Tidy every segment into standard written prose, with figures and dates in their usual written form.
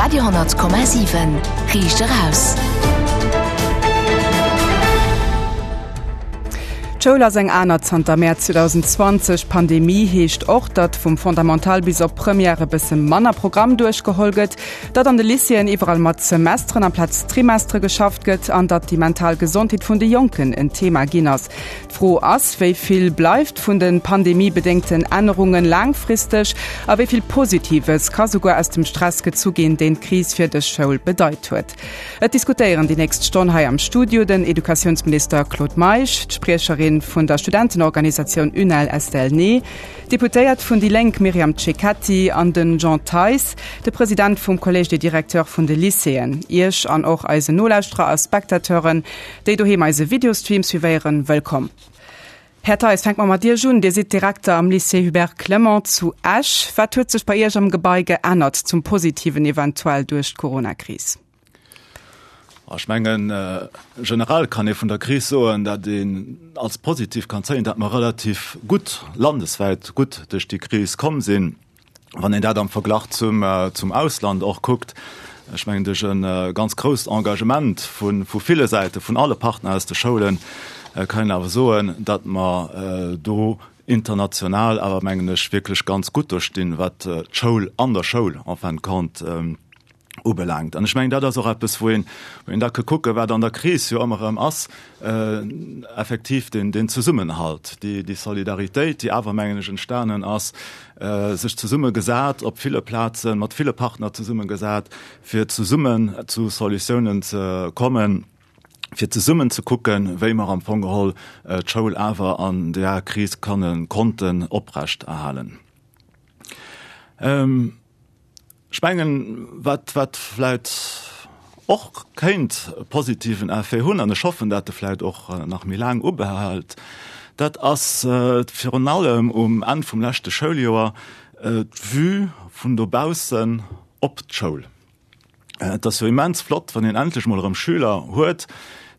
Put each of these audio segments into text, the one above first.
Radio,7 Riicht eraus. D'Schoul ass eng aner zanter Mäerz 2020. Pandemie heescht och, datt vum Fondamental bis op Première e bësse manner Programm duerchgeholl gëtt, datt an de Lycéeën iwwerall mat Semesteren amplaz Trimestere geschafft gëtt an datt déi mental Gesondheet vun de Jonken en Thema ginn ass. D'Fro ass, Wéi vill bleift vun de pandemiebedéngten Ännerunge laangfristeg a wéi vill Positives ka souguer aus dem Stress gezu ginn, deen d'Kris fir dës Schoul bedeit huet? Et diskutéieren déi nächst Stonn hei am Studio den Educatiounsminister Claude Meisch, d'Spriecherin vun der Studentenorganisatioun UNEL Estelle Ney, d'Deputéiert vun déi Lénk Myriam Cecchetti an den Jean Theis, de President vum Collège des Directeurs vun de Lycéeën. Iech an och eisen Nolauschterer a Spectateuren Déi doheem eise Videostream suivéieren, wëllkomm. Här Theis, fänke mer mat Iech un. Dir sidd Direkter am Lycée Hubert Clement zu Esch. Wat huet sech bei Iech am Gebai geännert, zum Positiven eventuell, duerch d'Coronakris? Ech mengen, generell kann ee vun der Kris soen, datt een als positiv kann zéien, datt mer relativ gutt, landeswäit gutt duerch déi Kris komm sinn. Wann een dat am Verglach zum, zum Ausland och kuckt, ech mengen duerch e ganz grousst Engagement vu, vu ville Säite, vun alle Partner aus de Schoulen, kann een awer soen, datt mer do international awer, mengen ech, wierklech ganz gutt do stinn, wat d'Schoul an der Schoul en fin de compte ubelaangt. An ech mengen, dat ass och eppes, wou een, wou een da ka kucken, wat an der Kris jo ëmmer erëm ass, effektiv deen, deen Zesummenhalt, déi, déi Solidaritéit, déi awer, mengen ech, entstanen ass, sech zesummegesat op ville Plazen, mat ville Partner zesummegesat, fir zesummen zu Solutiounen ze kommen, fir zesummen ze kucken, wéi mer am Fong geholl d'Schoul awer an där Kris kënnen, konnten oprechterhalen. Ech mengen, wat, wat vläit och kéint e positiven Effet hunn, an ech hoffen, dat e vläit och nach méi laang ubehält, dat ass virun allem um Enn vum leschte Schouljoer d'Vue vun dobaussen op d'Schoul. Et ass jo immens flott, wann een endlech mol erëm Schüler huet,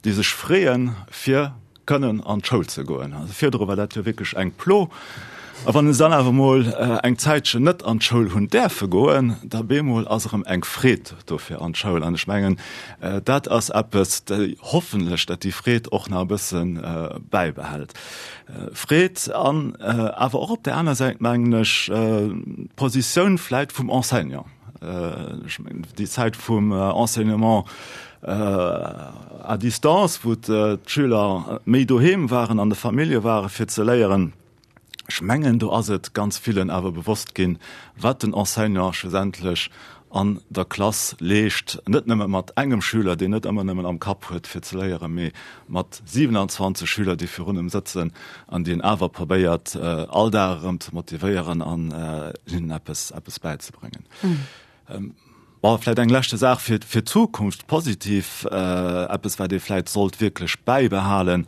déi sech freeën, fir kënnen an d'Schoul ze goen. Also virdru war dat jo wierklech eng Plo. A wann se dann awer mol eng Zäitchen net an d'Schoul hunn däerfe goen, da bemol ass erëm eng Freed do fir an d'Schoul. An ech mengen, dat ass eppes, déi hoffentlech, dat déi Freed och nach e bësse bäibehält. Freed an awer och op där aner Säit, mengen ech, d'Positioun vläit vum Enseignant. Ech mengen, déi Zäit vum Enseignement à distance, wou d'Schüler méi doheem waren, an de Famillje waren, fir ze léieren, ech mengen, do ass et ganz villen awer bewosst ginn, wat den Enseignant schlussendlech an der Klass leescht, net nëmme mat engem Schüler, deen net ëmmer nëmmen am Kapp huet, fir ze léieren, mee mat 27 Schüler, déi virun em sëtzen an déi en awer probéiert, all Dag erëm ze motivéieren an hinnen eppes, eppes bäizebréngen. Bon, vläicht eng leschte Saach fir, fir d'Zukunft, positiv, eppes, wat ee vläicht sollt wierklech bäibehalen,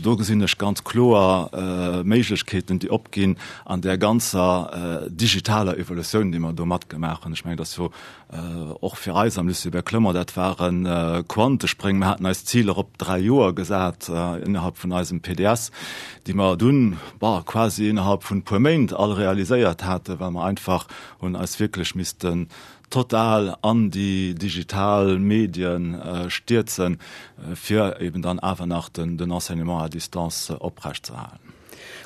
Do gesinn ech ganz kloer Méiglechkeeten, déi opginn an där ganzer digitaler Evolutioun, déi mer do matgemaach hunn. Ech mengen, dass jo och fir eis am Lycée Hubert Clement, dat ware Quantespréng. Mir haten eis Ziler op 3 Joer gesat innerhalb vun eisem PDS, déi mer dunn, bon, quasi innerhalb vun e puer Méint all realiséiert haten, well mer einfach hunn eis wierklech missten total an déi digital Medien stierzen, fir eben dann awer nach den Enseignement à distance oprechtzeerhalen.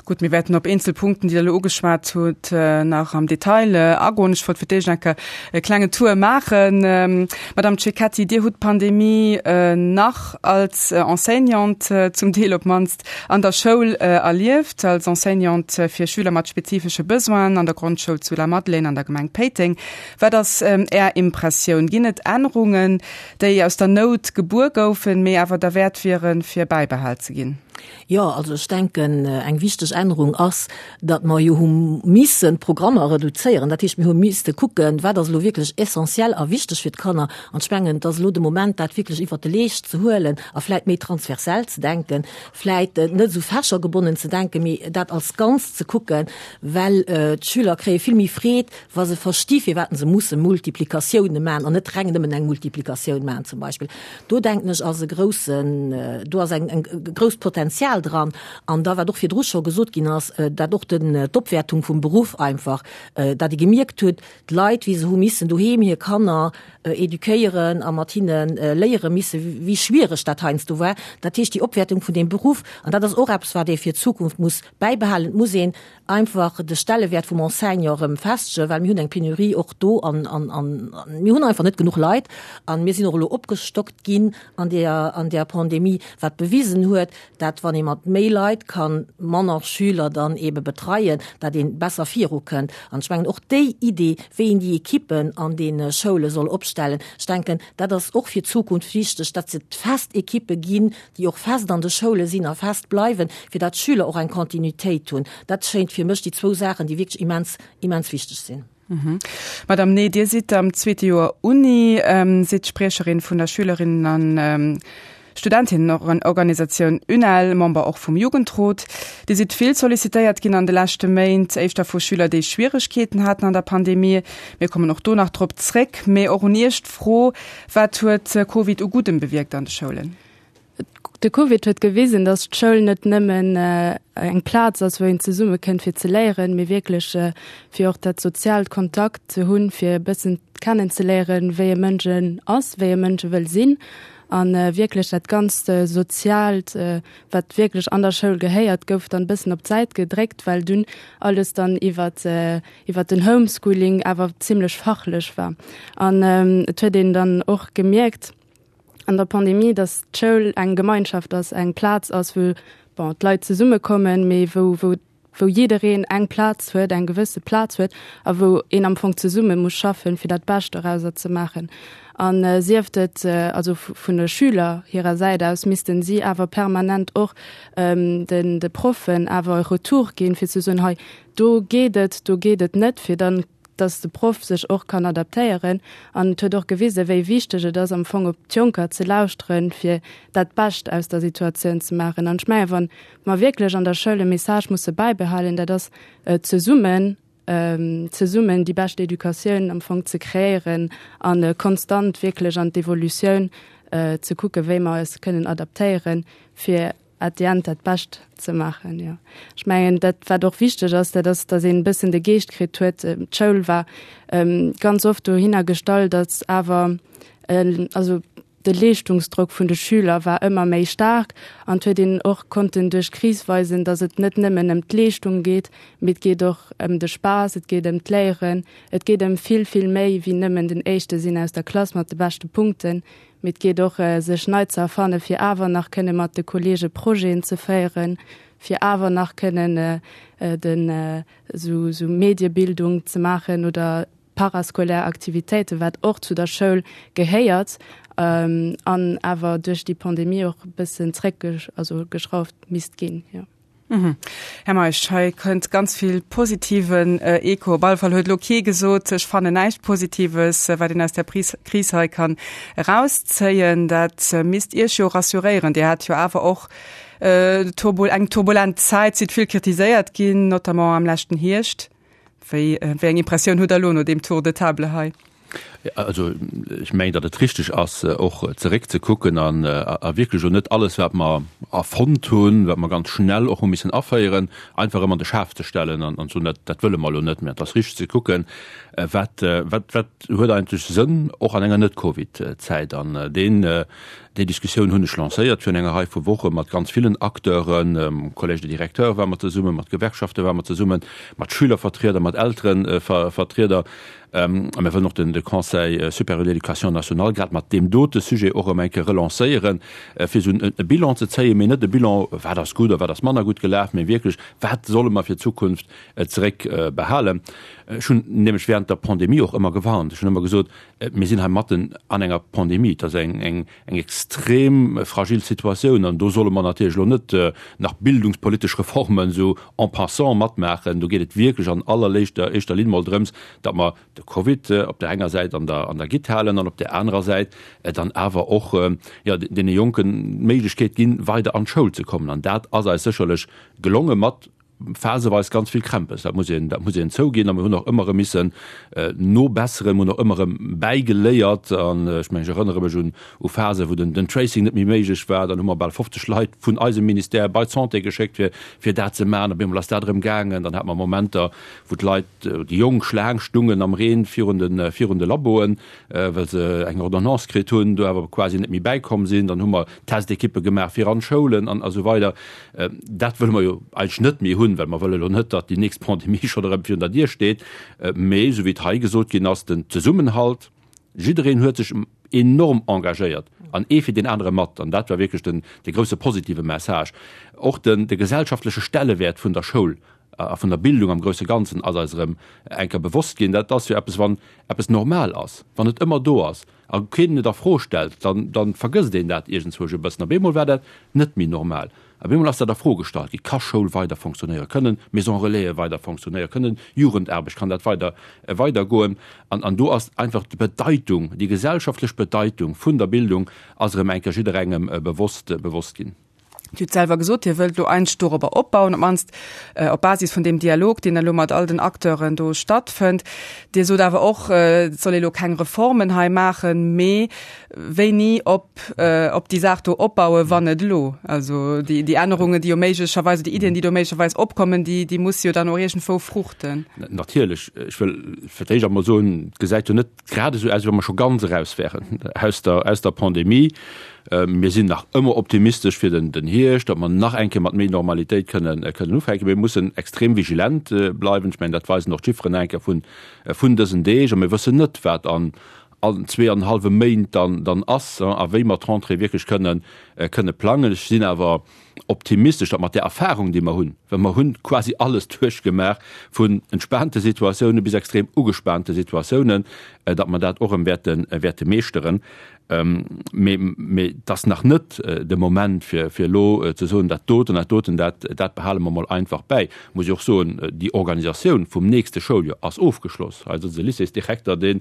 Gutt, mir wäerten op eenzel Punkten, déi Der elo ugeschwat hutt, nach am Detail agoen. Ech wollt fir d'éischt eng Kéier e klengen Tour maachen. Madame Cecchetti, Dir hutt d'Pandemie nach als Enseignante, zum Deel op d'mannst, an der Schoul erlieft, als Enseignante fir Schüler mat spezifesche Besoinen an der Grondschoul zu Lamadelaine an der Gemeng Péiteng. Wat ass Är Impressioun? Ginn et Ännerungen, déi aus der Nout gebuer goufen, mee awer derwäert wieren, fir bäibehal ze ginn? Jo, also ech denken, eng wichteg Ännerung ass, datt mer jo hu missen d'Programmer reduzéieren. Dat heescht, mir hu misste kucken, wat ass elo wierklech essentiell a wichteg fir d'Kanner. An ech mengen, et ass elo de Moment, dat wierklech iwwert de Leescht ze huelen a vläit méi transversell ze denken, vläit net esou fächergebonnen ze denken, mee dat als Ganzt ze kucken, well d'Schüler kréie vill méi Freed, wa se versti firwat se musse Multiplikatioune maachen an net reng nëmmen eng Multiplikatioun maachen zum Beispill. Do denken ech ass e groussen, do ass eng, eng grousst Potenzial. Potenzial dran. An da, wat och virdru scho gesot ginn ass, dat och den, d'Opwäertung vum Beruff einfach, dat ee gemierkt huet, d'Leit, wéi se hu missen doheem hir Kanner eduquéieren a mat hinne léiere misse wéi schwiereg dat heiansdo war. Dat heescht, déi Opwäertung vun deem Beruff, an dat ass och eppes, wat ee fir d'Zukunft muss bäibehalen, et muss een einfach de Stellewäert vum Enseignant erëm festegen, well mir hunn eng Penurie och do an mir hunn einfach net genuch Leit. A mir sinn och elo opgestockt ginn an där an där Pandemie, wat bewisen huet, dat wann ee mat méi Leit kann manner Schüler dann eebe betreien, dat ee besser virukënnt. An ech mengen och déi Idee, wéi een déi Ekippen an deene Schoule soll opstellen, ech denken, dat ass och fir d'Zukunft wichteg, dat et fest Ekippe ginn, déi och fest an de Schoule sinn a fest bleiwen, fir dat d'Schüler och eng Continuitéit hunn. Dat schéint fir mech déi zwou Saachen, déi wierklech immens, immens wichteg sinn. Madame Ney, Dir sidd am zweete Joer Uni, sidd Spriecherin vun der Schülerinnen an Studentinnenorganisatioun UNEL, Member och vum Jugendrot. Dir sidd vill sollicitéiert ginn an de leschte Méint, éischter vu Schüler, déi Schwieregkeeten haten an der Pandemie. Mir kommen och do nach drop zréck. Mee och un Iech d'Fro, Wat huet Covid u Guddem bewierkt an de Schoulen? De Covid huet gewisen, datt d'Schoul net nëmmen eng Plaz ass, wou een zesumme kënnt fir ze léieren, mee wierklech fir och dat soziaalt Kontakt ze hunn, fir e bëssen kennenzeléieren, wéi e Mënsch en ass, wéi e Mënsch e wëll sinn. A wierklech dat ganzt Soziaalt, wat wierklech an der Schoul gehéiert, gouf dann e bëssen op d'Säit gedréckt, well dunn alles dann iwwert iwwert den Homeschooling awer zimlech fachlech war. An et huet een dann och gemierkt an der Pandemie, datt d'Schoul eng Gemeinschaft ass, eng Plaz ass, wou, bon, d'Leit zesummekommen, mee wou, wou, wou jiddereen eng Plaz huet, eng gewësse Plaz huet a wou een am Fong zesumme muss schaffen, fir dat Bescht dorauser ze maachen. An sieft et also vun de Schüler hirer Säit aus, missten si awer permanent och den de Proffen awer e Retour ginn, fir ze soen, hei do geet et, do geet et net, fir dann, dass de Proff sech och kann adaptéieren. An et huet och gewisen, wéi wichteg et ass, am Fong op d'Jonker ze lauschteren, fir dat Bescht aus der Situatioun ze maachen. An ech mengen, wa mer wierklech an der Schoul e Message musse bäibehalen, dat ass, zesummen, zesummen déi bescht Educatioun am Fong ze kreéieren a konstant wierklech an d'Evolutioun ze kucken, wéi mer eis kënnen adaptéieren, fir at the end dat Bescht ze maachen. Jo, ech mengen dat wat och wichteg ass, dat ass, datt een e bëssen de Geescht kritt huet. D'Schoul war ganz oft dohinner gestallt, datt awer also de Leeschtungsdrock vun de Schüler war ëmmer méi staark an et huet een och konnten duerch d'Kris weisen, datt et net nëmmen ëm d'Leeschtung geet, mee et geet och ëm de Spaass, et geet ëm d'Léieren, et geet ëm vill, vill méi wéi nëmmen den Éischte sinn aus der Klass mat de beschte Punkten. Mee et geet och, sech nei ze erfanne fir awer nach kënne mat de Kollege Projeten ze féieren, fir awer nach kënnen den esou esou Mediebildung ze maachen oder parascolaire Aktivitéiten, wat och zu der Schoul gehéiert an awer duerch déi Pandemie och e bëssen zréck also geschrauft misst ginn, jo. Här Meisch, hei kënnt ganz vill positiven Echo. Op alle Fall huet elo kee gesot, ech fannen näischt Positives, wat een aus där Kris hei kann erauszéien. Dat misst Iech jo rassuréieren. Dir hat jo awer och eng turbulent Zäit, sidd vill kritiséiert ginn, notamment am leschten Hierscht. Wéi eng Impressioun hutt Der elo no deem Tour de table hei? Also ech mengen, datt et richteg ass, och zeréckzekucken an a wierklech elo net alles, wat mer erfonnt hunn, wat mer ganz schnell och hu missen aféieren, einfach erëm an de Schaf ze stellen an ze soen, dat dat wëlle mer elo net méi. Et ass richteg ze kucken, wat wat wat huet eigentlech Sënn, och an enger Net-Covid-Zäit. An deen déi Diskussioun hunn ech lancéiert virun enger Rei vu Woche mat ganz villen Acteuren, Collège des Directeurs ware mer zesummen, mat Gewerkschafte ware mer zesummen, mat Schülervertrieder, mat Elterevertrieder. A mir wëllen och de Conseil supérieur de l'éducation nationale grad mat deem dote Sujet och erëm eng Kéier relancéieren, fir esou e Bilan ze zéien, mee net e Bilan, wat ass gutt a wat ass manner gutt gelaf, mee wierklech, wat solle mer fir d'Zukunft zeréckbehalen. Ech hunn nämlech während der Pandemie och ëmmer gewarnt. Ech hunn ëmmer gesot, mir sinn hei matten an enger Pandemie, et ass eng extrem fragil Situatioun an do solle mer natierlech elo net nach bildungspolitesch Reformen esou en passant matmaachen. Do geet et wierklech an allerléischter éischter Linn mol drëms, datt mer de Covid op där enger Säit an der an der Gitt halen an op där anerer Säit dann awer och, jo, deene Jonken d'Méiglechkeet ginn, weider an d'Schoul ze kommen. An dat ass eis sécherlech gelonge mat. phaseweis ganz vill Krämpes, dat muss een, dat muss een zouginn. A mir hunn och ëmmer erëm missen nobesseren, mir hunn och ëmmer erëm bäigeléiert. An ech mengen, ech erënnere mech un u Phasen, wou den, den Tracing net méi méiglech war. Dann hu mer bal 50 Leit vun eisem Ministère bei d'Santé geschéckt, fir, fir dat ze maachen. Op eemol ass dat erëm gaangen. Dann hate mer Momenter, wou d'Leit, déi Jonk Schlaang stungen am Reen virun de, virun de Laboen, well se eng Ordonnance kritt hunn, do awer quasi net méi bäikomm sinn. Dann hu mer Testekippe gemaach fir an d'Schoulen an esou weider. Dat wëlle mer jo eigentlech net méi hunn, well mer wëlle lo net, datt déi nächst Pandemie schonn erëm virun der Dier steet. Mee esou wéi et hei gesot ginn ass, den Zesummenhalt, jiddereen huet sech enorm engagéiert an ee fir deen anere mat. An dat war wierklech den, dee grousse positive Message. Och den, de gesellschaftleche Stellewäert vun der Schoul a vun der Bildung am grousse Ganzen ass eis erëm eng Kéier bewosst ginn. Dat ass jo eppes, wann eppes normal ass, wann et ëmmer do ass a keen et a Fro stellt, dann, dann vergësst een dat iergendzwousch e bëssen. Op eemol war dat net méi normal. Op eemol ass dat a Fro gestallt ginn, Ka Schoul weider fonctionnéieren? Kënnen Maisons Relaisen weider fonctionnéieren? Kënnen Jugendaarbecht, kann dat weider, weidergoen? An, an do ass einfach d'Bedeitung, déi gesellschaftlech Bedeitung vun der Bildung ass erëm eng Kéier jidderengem bewosst, bewosst ginn. Dir hutt selwer gesot, Dir wëllt elo eigentlech dorobber opbauen, op d'mannst op Basis vun deem Dialog, deen elo mat all den Acteuren do stattfënnt. Dir sot awer och, et soll ee elo keng Reformen hei maachen, mee wéini op op déi Saach do opbauen, wann net elo? Also déi, déi Ännerungen, déi jo méiglecherweis, déi Iddien, déi do méiglecherweis opkommen, déi, déi musse jo dann och iergendwou fruchten. Natierlech. Ech wëll fir d'éischt emol soen, et gesäit jo net grad esou aus, wéi wa mer scho ganz eraus wären aus der, aus der Pandemie. Mir sinn nach ëmmer optimistesch fir den, den Hierscht, datt mer nach eng Kéier mat méi Normalitéit kënnen, kënnen ufänken. Mir mussen extrem vigilent bleiwen. Ech mengen, dat weisen och d'Chifferen eng Kéier vun, vun dësen Deeg. A mir wëssen net, wat an, an zweeanenhallwe Méint dann, dann ass a wéi mer d'Rentrée wierklech kënnen, kënne plangen. Ech sinn awer optimistesch, datt mat där Erfahrung, déi mer hunn, well mer hunn quasi alles duerchgemaach, vun entspaante Situatioune bis extrem ugespaante Situatiounen, datt mer dat och erëm wäerte, wäerte meeschteren. Mee, mee et ass nach net de Moment, fir, fir elo ze soen, dat doten, dat doten, dat, dat behale mer mol einfach bäi. Muss ech och soen, déi Organisatioun vum nächste Schouljoer ass ofgeschloss. Hei sëtzt e Lycéesdirekter, deen,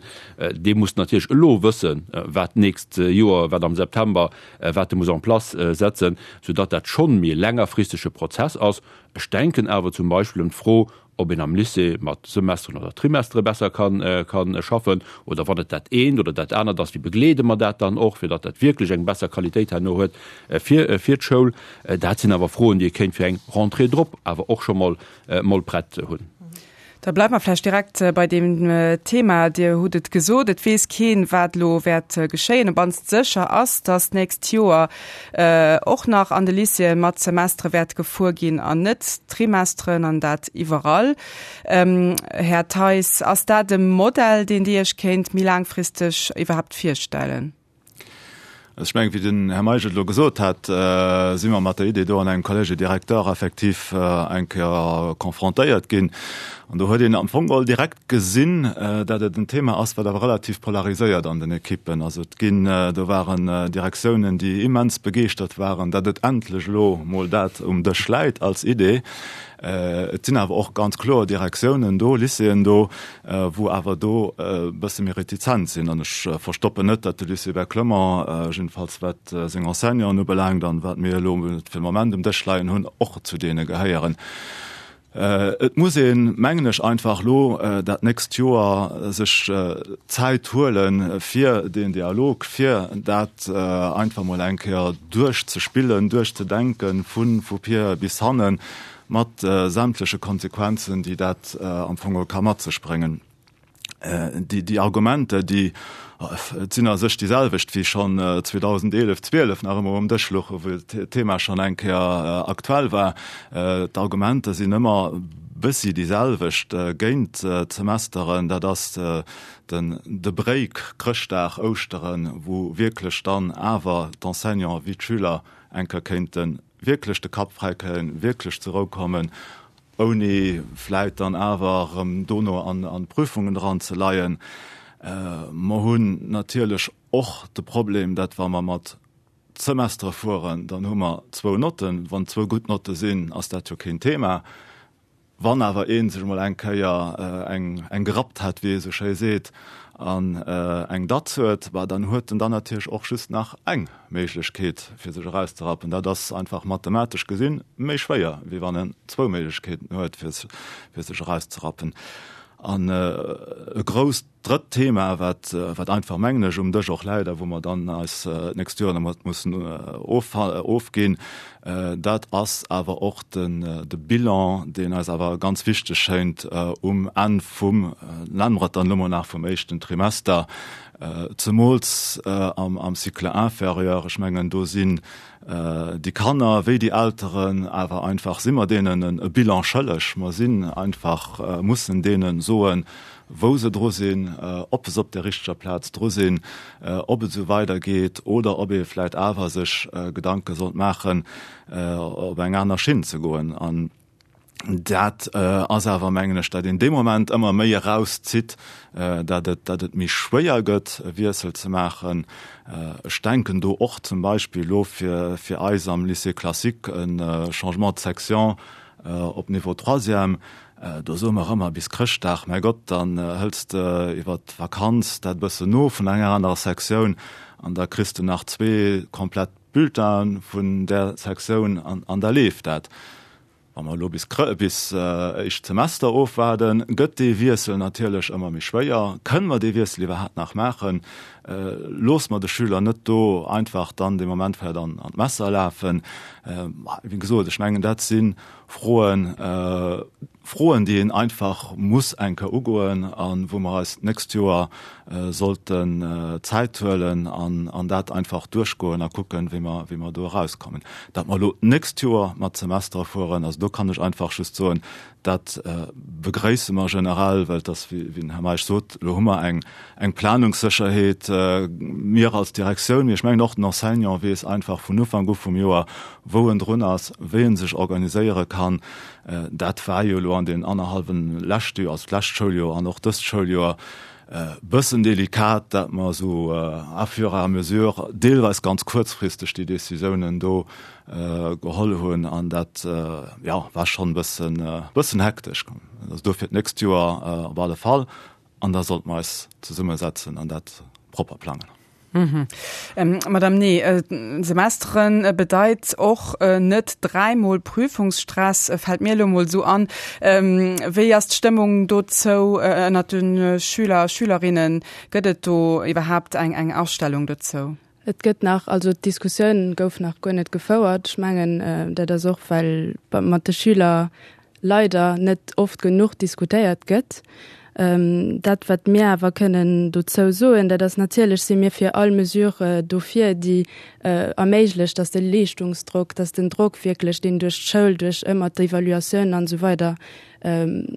dee muss natierlech elo wëssen, wat d'nächst Joer, wat am September wat e muss en place setzen, soudatt dat schonn méi e längerfristege Prozess ass. Ech denken awer zum Beispill un d'Fro, ob een am Lycée mat Semesteren oder Trimestere besser ka schaffen oder wann et dat eent oder dat anert ass, wéi begleede mer dat dann och, fir datt dat wierklech eng besser Qualitéit herno huet fir d'Schoul. Dat sinn awer Froen, déi ee kéint fir eng Rentrée drop awer och scho mol prett hunn. Da bleiwe mer vläicht direkt bei deem Thema. Dir hutt et gesot, et weess keen, wat elo wäert geschéien. Op mannst sécher ass, datt d'nächst Joer och nach an de Lycéeë mat Semestere wäert gefuer ginn an net Trimesteren, an dat iwwerall. Här Theis, ass dat e Modell, deen Dir Iech kéint méi laangfristeg iwwerhaapt virstellen? Also ech mengen, wéi den Här Meisch et elo gesot hat, si mer mat der Idee do an engem Collège directeur effektiv eng Kéier confrontéiert ginn. An do huet een am Fong geholl direkt gesinn, dat et en Thema ass, wat awer relativ polariséiert an den Ekippen. Also et ginn, do waren Direktiounen, déi immens begeeschtert waren, dat et endlech elo mol dat um Dësch läit als Idee. Et sinn awer och ganz kloer Direktiounen do, Lycéeën do, wou awer do e bësse méi retizent sinn. An ech verstoppen net, datt de Lycée Hubert Clement, jiddefalls wat seng Enseignanten ubelaangt an wat mir elo fir de Moment um Dësch leien hunn, och zu deene gehéieren. Et muss een, mengen ech, einfach elo dat nächst Joer sech Zäit huelen, fir deen Dialog, fir dat einfach mol eng Kéier duerchzespillen, duerchzedenken, vu vir bis hannen, mat sämtleche Konsequenzen, déi dat am Fong geholl ka mat sech bréngen. Déi Argumenter, déi, et sinn a sech déi selwecht wéi schonn 2011, 12 nach ëmmer um Dësch louchen, wou d'Thema schonn eng Kéier aktuell war. D'Argumenter sinn ëmmer bëssi déi selwecht géint d'Semesteren. Dat ass den de Break Chrëschtdag, Ouschteren, wou wierklech dann awer d'Enseignanten wéi d'Schüler eng Kéier kéinte wierklech de Kapp fräi kréien, wierklech zur Rou kommen, ouni vläit dann awer erëm dono an d'Prüfungen dran ze leien. Mer hunn natierlech och de Problem, dat wa mer mat Semestere fueren, dann hu mer zwou Notten. Wann zwou gutt Notte sinn, ass dat jo keen Thema. Wann awer ee sech emol eng Kéier eng eng gerappt hat, wéi ee sou schéi seet, an eng Datz huet, bah dann huet en dann natierlech och just nach eng Méiglechkeet fir sech erauszerappen. Dat ass einfach mathematesch gesinn méi schwéier, wéi wann en zwou Méiglechkeeten huet fir sech erauszerappen. An e grousst Drëtt Thema, wat, wat einfach, mengen ech, um Dësch och läit a wou mer dann eis d'nächst Joer dermat mussen ofginn, dat ass awer och den, de Bilan, deen eis awer ganz wichteg schéint um Enn vum, nenne mer et dann elo mol nach, vum éischten Trimester, zemools am, am Cycle inférieur. Ech mengen, do sinn déi Kanner wéi déi Elteren awer einfach, si mer deenen e Bilan schëlleg. Mer sinn einfach, mussen deene soen, wou se dru sinn, ob se op der richteger Plaz dru sinn, ob et esou weidergeet oder ob ee vläicht awer sech Gedanke sollt maachen, op eng aner Schinn ze goen. An dat ass awer, mengen ech, dat een dee Moment ëmmer méi erauszitt, dat et, dat et méi schwéier gëtt, e Wiessel ze maachen. Ech denken do och zum Beispill elo fir, fir eis am Lycée classique e Changement de section op Niveau troisième, Do soe mer ëmmer bis Chrëschtdag, mäi Gott, dann hëls de iwwer d'Vakanz dat e bëssen no vun enger anerer Sektioun an da kriss de nach zwee komplett Bulletine vun där Sektioun an da leeft dat. Wa mer elo bis bis éischt Semester ofwaarden, gëtt dee Wiessel natierlech ëmmer méi schwéier. Kënne mer dee Wiessel iwwerhaapt nach maachen? Loosse mer de Schüler net do einfach dann dee Moment vläicht an d'Messer lafen? Wéi gesot, ech mengen, dat si Froen, Froen, déi een einfach muss eng Kéier ugoen a wou mer eis d'nächst Joer sollten Zäit huelen an an dat einfach duerchgoen a kucken, wéi mer, wéi mer do erauskommen. Dat mer elo d'nächst Joer mat Semestere fueren, also do kann ech einfach just soen, dat begréisse mer generell, well et ass, wéi den Här Meisch sot, elo hu mer eng, eng Planungssécherheet, mir als Direktioun, mee ech mengen och den Enseignant weess einfach vun Ufank u vum Joer, wou en drun ass, wéi en sech organiséiere kann. Dat war jo elo an deenen annerhallwen leschte Joer, also d'lescht Schouljoer an och dëst Schouljoer, e bëssen delikat, dat mer esou à fur et à mesure, deelweis ganz kuerzfristeg déi Décisiounen do geholl hunn an dat, jo, war schonn e bëssen, bëssen hektesch. Also dofir d'nächst Joer op alle Fall an da sollte mer eis zesummesetzen an dat propper plangen. Madame Nee, Semesteren bedeit och net dräimol Prüfungsstress, fält mir elo mol esou an. Wéi ass d'Stëmmung dozou ënnert de Schüler a Schülerinnen? Gëtt et do iwwerhaapt eng eng Astellung dozou? Et gëtt nach, also d'Diskussioun gouf nach guer net gefouert. Ech mengen, dat ass och well mat de Schüler leider net oft genuch diskutéiert gëtt. Dat, wat mir awer kënnen dozou soen, dat ass, natierlech si mir fir all Mesure dofir, déi erméiglecht, dass de Leeschtungsdrock, dass den Drock wierklech, deen duerch d'Schoul, duerch ëmmer d'Evaluatioun an esou weider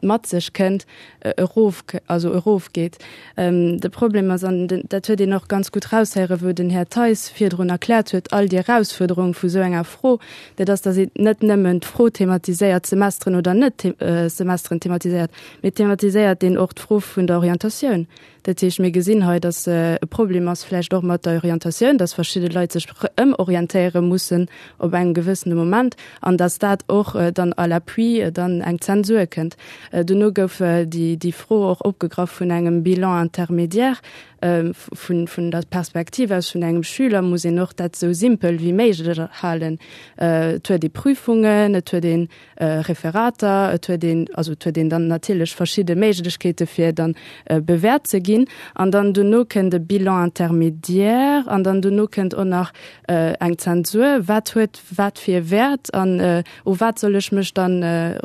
mat sech kënnt, erof, also erofgeet. De Problem ass, an dat huet een och ganz gutt raushéieren, wou den Här Theis virdrun erkläert huet, all déi Erausfuerderung vu sou enger Fro, dat ass, datt een net nëmmen d'Fro thematiséiert, Semesteren oder net Semesteren thematiséiert, mee thematiséiert een och d'Fro vun der Orientatioun. Dat heescht, mir gesinn hei, datt e Problem ass vläicht och mat der Orientatioun, datt verschidde Leit sech ëmorientéiere mussen op engem gewëssene Moment an datt dat och dann à l'appui dann eng Zensur kënnt. Dono gouf déi Fro och opgegraff vun engem Bilan intermédiaire. Vun der Perspektiv aus vun engem Schüler muss een och dat esou simpel wéi méiglech halen. Et huet ee Prüfungen, et huet een Referater, et huet een, also et huet een dann natierlech verschidde Méiglechkeete fir dann bewäert ze ginn an dann dono kënnt e Bilan intermédiaire an dann dono kënnt och nach eng Zensur. Wat huet wat fir e Wäert an u wat soll ech mech dann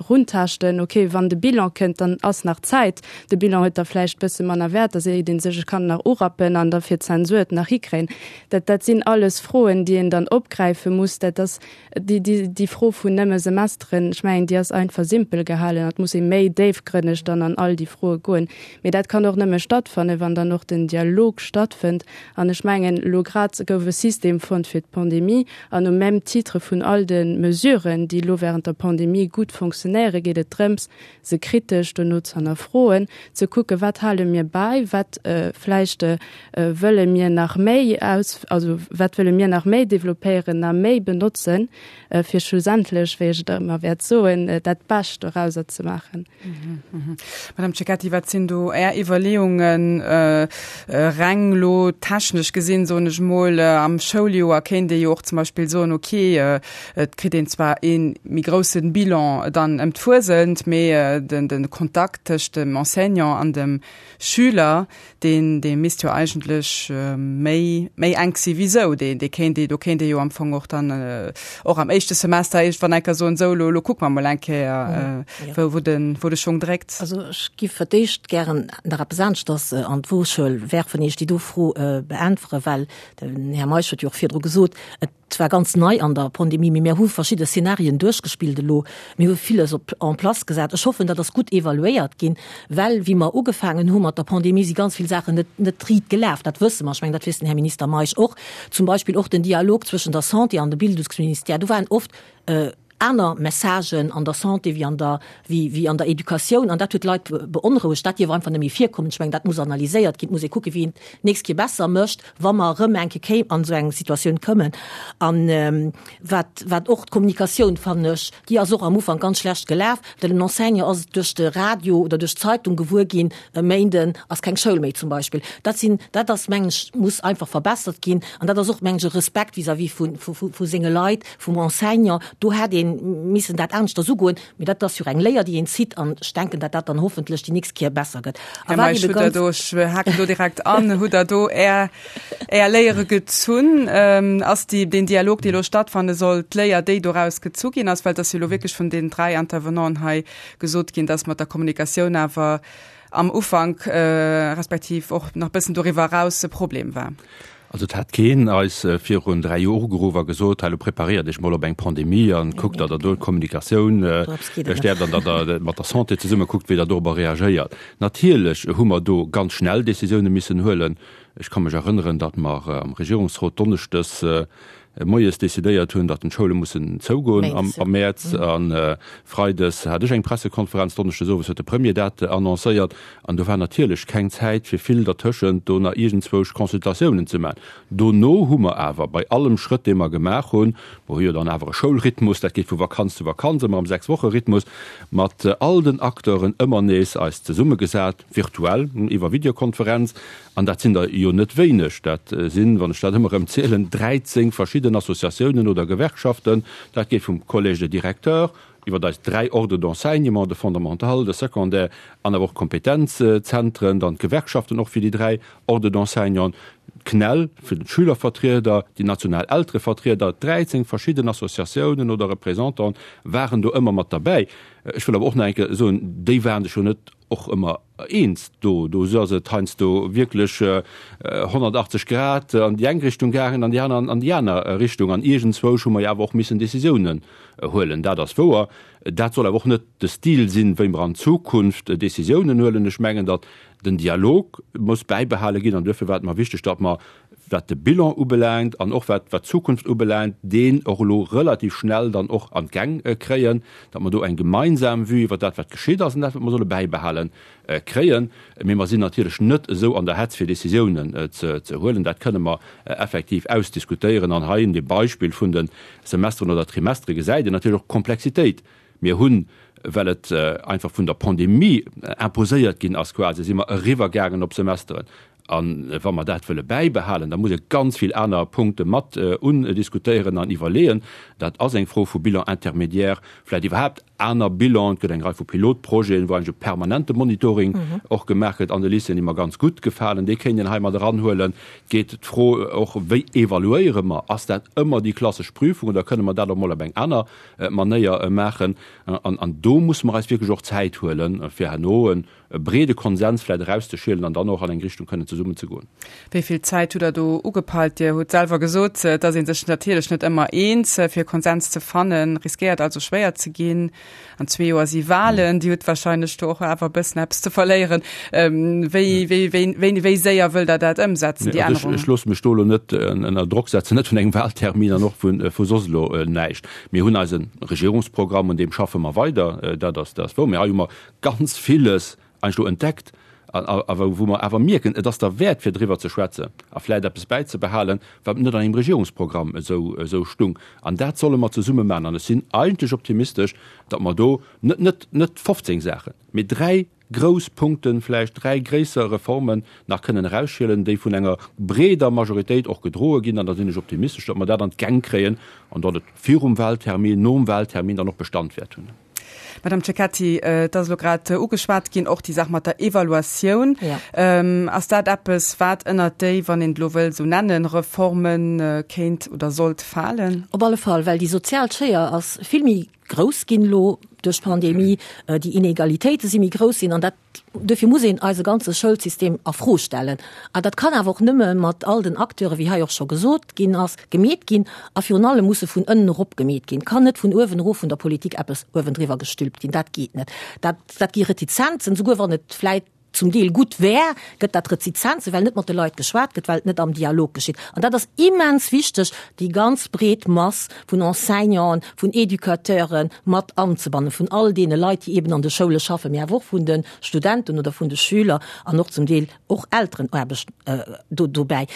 runtaaschten? Okay, wann de Bilan kënnt, dann ass nach Zäit. De Bilan huet da vläicht bësse manner Wäert, da seet ee sech, ech kann nach urappen an da fir d'Zensur et nach hikréien. Dat, dat sinn alles Froen, déi een dann opgräife muss. Dat ass Déi, déi, déi Fro vun nëmme Semesteren, ech mengen, déi ass einfach simpel gehalen. Et muss ee méi déifgrënneg dann an all déi Froe goen. Mee dat kann och nëmme stattfannen, wann dann och den Dialog stattfënnt. An ech mengen, elo grad gouf e System fonnt fir d'Pandemie. An au même titre vun all de Mesuren, déi elo während der Pandemie gutt fonctionnéieren, geet et drëms, se kritesch dono ze hannerfroen, ze kucken, wat hale mir bäi, wat vläicht. heescht, wëlle mir nach méi aus, also wat wëlle mir nach méi développéieren, nach méi benotzen, fir schlussendlech, wéi ech et ëmmer wäert soen, dat Bescht dorauser ze maachen. Madame Cecchetti, wat sinn do Är Iwwerleeungen, reng elo technesch gesinn, soen ech emol? Am Schouljoer kéint ee jo och zum Beispill soen, okay, et kritt een zwar ee méi grousse Bilan dann ëm d'Fuesent, mee de Kontakt tëscht dem Enseignant an dem Schüler, deen, dee misst jo eigentlech méi, méi enk si wéi sou. Dee, dee kéint ee, do kéint ee jo am Fong och dann och am éischte Semester iergendwann eng Kéier soen, sou, elo, elo kucke mer mol eng Kéier, wou, wou de, wou de Schong dréckt. Also ech giff fir d'éischt gären nach eppes aneschters an d'Woschuel werfen, ier ech déi do Fro beäntwere, well den Här Meisch huet jo och virdru gesot, et zwar ganz nei an der Pandemie, mee mir hu verschidde Szenarien duerchgespillt elo. Mir hu villes op en place gesat. Ech hoffen, dat ass gutt evaluéiert ginn, well wéi mer ugefaangen hu mat der Pandemie, si ganz vill Saachen net, net riit gelaf. Dat wësse mer. Ech mengen, dat weess den Här Minister Meisch och. Zum Beispill och den Dialog zwëschen der Santé an dem Bildungsministère. Do waren oft aner Messagen an der Santé wéi an der, wéi, wéi an der Educatioun. An dat huet d'Leit beonrouegt. Dat dierf einfach net méi virkommen. Ech mengen, dat muss analyséiert ginn. Et muss ee kucken, wéi een d'nächst Kéier besser mécht, wa mer erëm eng Kéier kéim an esou eng Situatioun kommen. An wat, wat och d'Kommunikatioun, fannen ech, déi ass och am Ufank ganz schlecht gelaf, well den Enseignant ass duerch de Radio oder duerch d'Zeitung gewuer ginn, e Méinden ass keng Schoul méi zum Beispill. Dat sinn, dat ass, mengen ech, muss einfach verbessert ginn. An dat ass och, mengen ech, e Respekt vis-à-vis vu, vu, vu senge Leit, vum Enseignant. Do hätt ee missen dat aneschters ugoen. Mee dat ass jo eng Léier, déi een zitt, an ech denken, datt dat dann hoffentlech déi nächst Kéier besser gëtt. A wat ebe ganz. Do, ech haken do direkt an, hutt Der do Är, Är Léiere gezunn? Ass déi, deen Dialog, dee elo stattfanne soll, d'Léier, déi doraus gezu ginn ass? Well et ass jo elo wierklech vun deenen 3 Intervenanten hei gesot ginn, datt mat der Kommunikatioun awer am Ufank, respektiv och nach bëssen doriwwer eraus e Problem war. Also et hat keen eis virun 3 Joer ugeruff a gesot, hei elo preparéiert iech mol op eng Pandemie an kuckt, datt der do d'Kommunikatioun stäerkt an datt der mat der Santé zesumme kuckt, wéi der dorobber reagéiert. Natierlech hu mer do ganz schnell Décisioune missen huelen. Ech ka mech erënneren, datt mer am Regierungsrot donneschdes moies decidéiert hunn, datt d'Schoule mussen zougoen am Mäerz. A freides hat ech eng Pressekonferenz, donneschdes owes huet de Premier dat annoncéiert. An do war natierlech keng Zäit fir vill dertëschent do nach iergendzwousch Consultatiounen ze maachen. Dono hu mer awer bei allem Schrëtt, dee mer gemaach hunn, mer hu jo dann awer e Schoulrhythmus, dat geet vu Vakanz zu Vakanz, ëmmer am Sechs-Woche-Rhythmus, mat all den Acteuren ëmmer nees eis zesummegesat, virtuell, iwwer Videokonferenz, an dat sinn der jo net wéineg, dat sinn, wann ech dat ëmmer erëm zielen, 13 verschidden Associatiounen oder Gewerkschaften, dat geet vum Collège des directeurs iwwer eis 3 Ordres d'enseignement, de Fondamental, de Secondaire an awer och d'Kompetenzzentren, dann d'Gewerkschaften och fir déi 3 Ordres d'enseignant, d'CNEL fir d'Schülervertrieder, déi national Elterevertrieder, 13 verschidden Associatiounen oder Représentanten waren do ëmmer mat derbäi. Ech wëll awer och nach eng Kéier soen, déi waren sech jo net och ëmmer eens do. Do ass et heiansdo wierklech 180 Grad an déi eng Richtung gaangen an déi aner an déi aner Richtung. An iergendzwousch hu mer jo awer och missen Décisiounen huelen. Dat ass wouer. Dat soll awer och net de Stil sinn, wéi mer an Zukunft Décisiounen huelen. Ech mengen, datt den Dialog muss bäibehale ginn an duerfir war et mer wichteg, datt mer, wat de Bilan ubelaangt an och wat d'Zukunft ubelaangt, deen och elo relativ schnell dann och an d'Gäng kréien, datt mer do eng gemeinsam Vue iwwer dat, wat geschitt ass an dat, wat mer solle bäibehalen, kréien. Mee mer sinn natierlech net esou an der Hetz, fir Décisiounen ze huelen. Dat kënne mer effektiv ausdiskutéieren. An hei un dem Beispill vun de Semesteren oder Trimestere gesäit een natierlech och d'Komplexitéit. Mir hunn, well et einfach vun der Pandemie imposéiert ginn ass quasi, si mer eriwwergaangen op Semesteren. A wa mer dat wëlle bäibehalen, da muss ee ganz vill aner Punkte mat undiskutéieren an iwwerleeën. Dat ass eng Fro vu Bilan intermédiaire, vläicht iwwerhaapt aner Bilan. Et gëtt eng Rei vu Pilotprojeten, wou eigentlech e permanente Monitoring och gemaach gëtt an de Lycéeën, déi mer ganz gutt gefalen. Dee kéint een hei mat eranhuelen. Et geet d'Fro och, Wéi evaluéiere mer? Ass dat ëmmer déi klassesch Prüfung oder kënne mer dat och mol op eng aner Manéier maachen? An do musse mer eis wierklech och Zäit huelen, fir herno e e breede Konsens vläit erauszeschielen an dann och an eng Richtung kënnen zesummen ze goen. Wéi vill Zäit hutt Der do ugepeilt? Dir hutt selwer gesot, et ass ee sech natierlech net ëmmer eens. Fir e Konsens ze fannen, riskéiert also schwéier ze ginn. An zwee Joer si Wahlen. Dir hutt wahrscheinlech do och awer e bëssen eppes ze verléieren. Wéi, wéi, wéi, wéi, wéi séier wëllt Der dat ëmsetzen, déi Ännerungen? Ech loosse mech do elo net ënner Drock setzen, net vun engem Wahltermin an och vu soss elo näischt. Mir hunn eise Regierungsprogramm, un deem schaffe mer weider, dat ass, dat ass wouer. Mee hei hu mer ganz villes eigentlech elo entdeckt. A wou mer awer mierken, et ass derwäert fir driwwer ze schwätzen a vläicht eppes bäizebehalen, wat net an engem Regierungsprogramm esou stung. An dat solle mer zesumme maachen. An ech sinn eigentlech optimistesch, datt mer do net, net, net 15 Saachen, mee dräi grouss Punkten, vläicht dräi gréisser Reformen nach kënnen erausschielen, déi vun enger breeder Majoritéit och gedroe ginn. An da sinn ech optimistesch, datt mer dat an d'Gäng kréien an datt et virum Wahltermin, nom Wahltermin dann och Bestand wäert hunn. Madame Cecchetti, et ass elo grad ugeschwat ginn, och déi Saach mat der Evaluatioun. Ass dat eppes, wat ënnert déi, wann een et elo wëll esou nennen, Reforme kéint oder sollt falen? Op alle Fall, well déi sozial Schéier ass vill méi grouss ginn elo duerch d'Pandemie, déi Inegalitéite si méi grouss ginn an dat, Duerfir muss een eise ganze Schoulsystem a Fro stellen. A dat kann awer och nëmme mat all den Acteuren, wéi hei och scho gesot ginn ass, gemeet ginn. A virun allem muss e vun ënnen erop gemeet ginn. Et kann net vun uewen erof vun der Politik eppes uewendriwwer gestülpt ginn. Dat geet net. Dat, dat gi Retizenzen, souguer wann et vläit zum Deel gutt wär, gëtt dat Retizenzen, well net mat de Leit geschwat gëtt, well et net am Dialog geschitt. An dat ass immens wichteg, déi ganz breet Mass vun Enseignanten, vun Educateure mat anzebannen, vun all deene Leit, déi eben an de Schoule schaffen, mee awer och vun de Studenten oder vun de Schüler an och zum Deel och Elterenaarbecht do dobäi.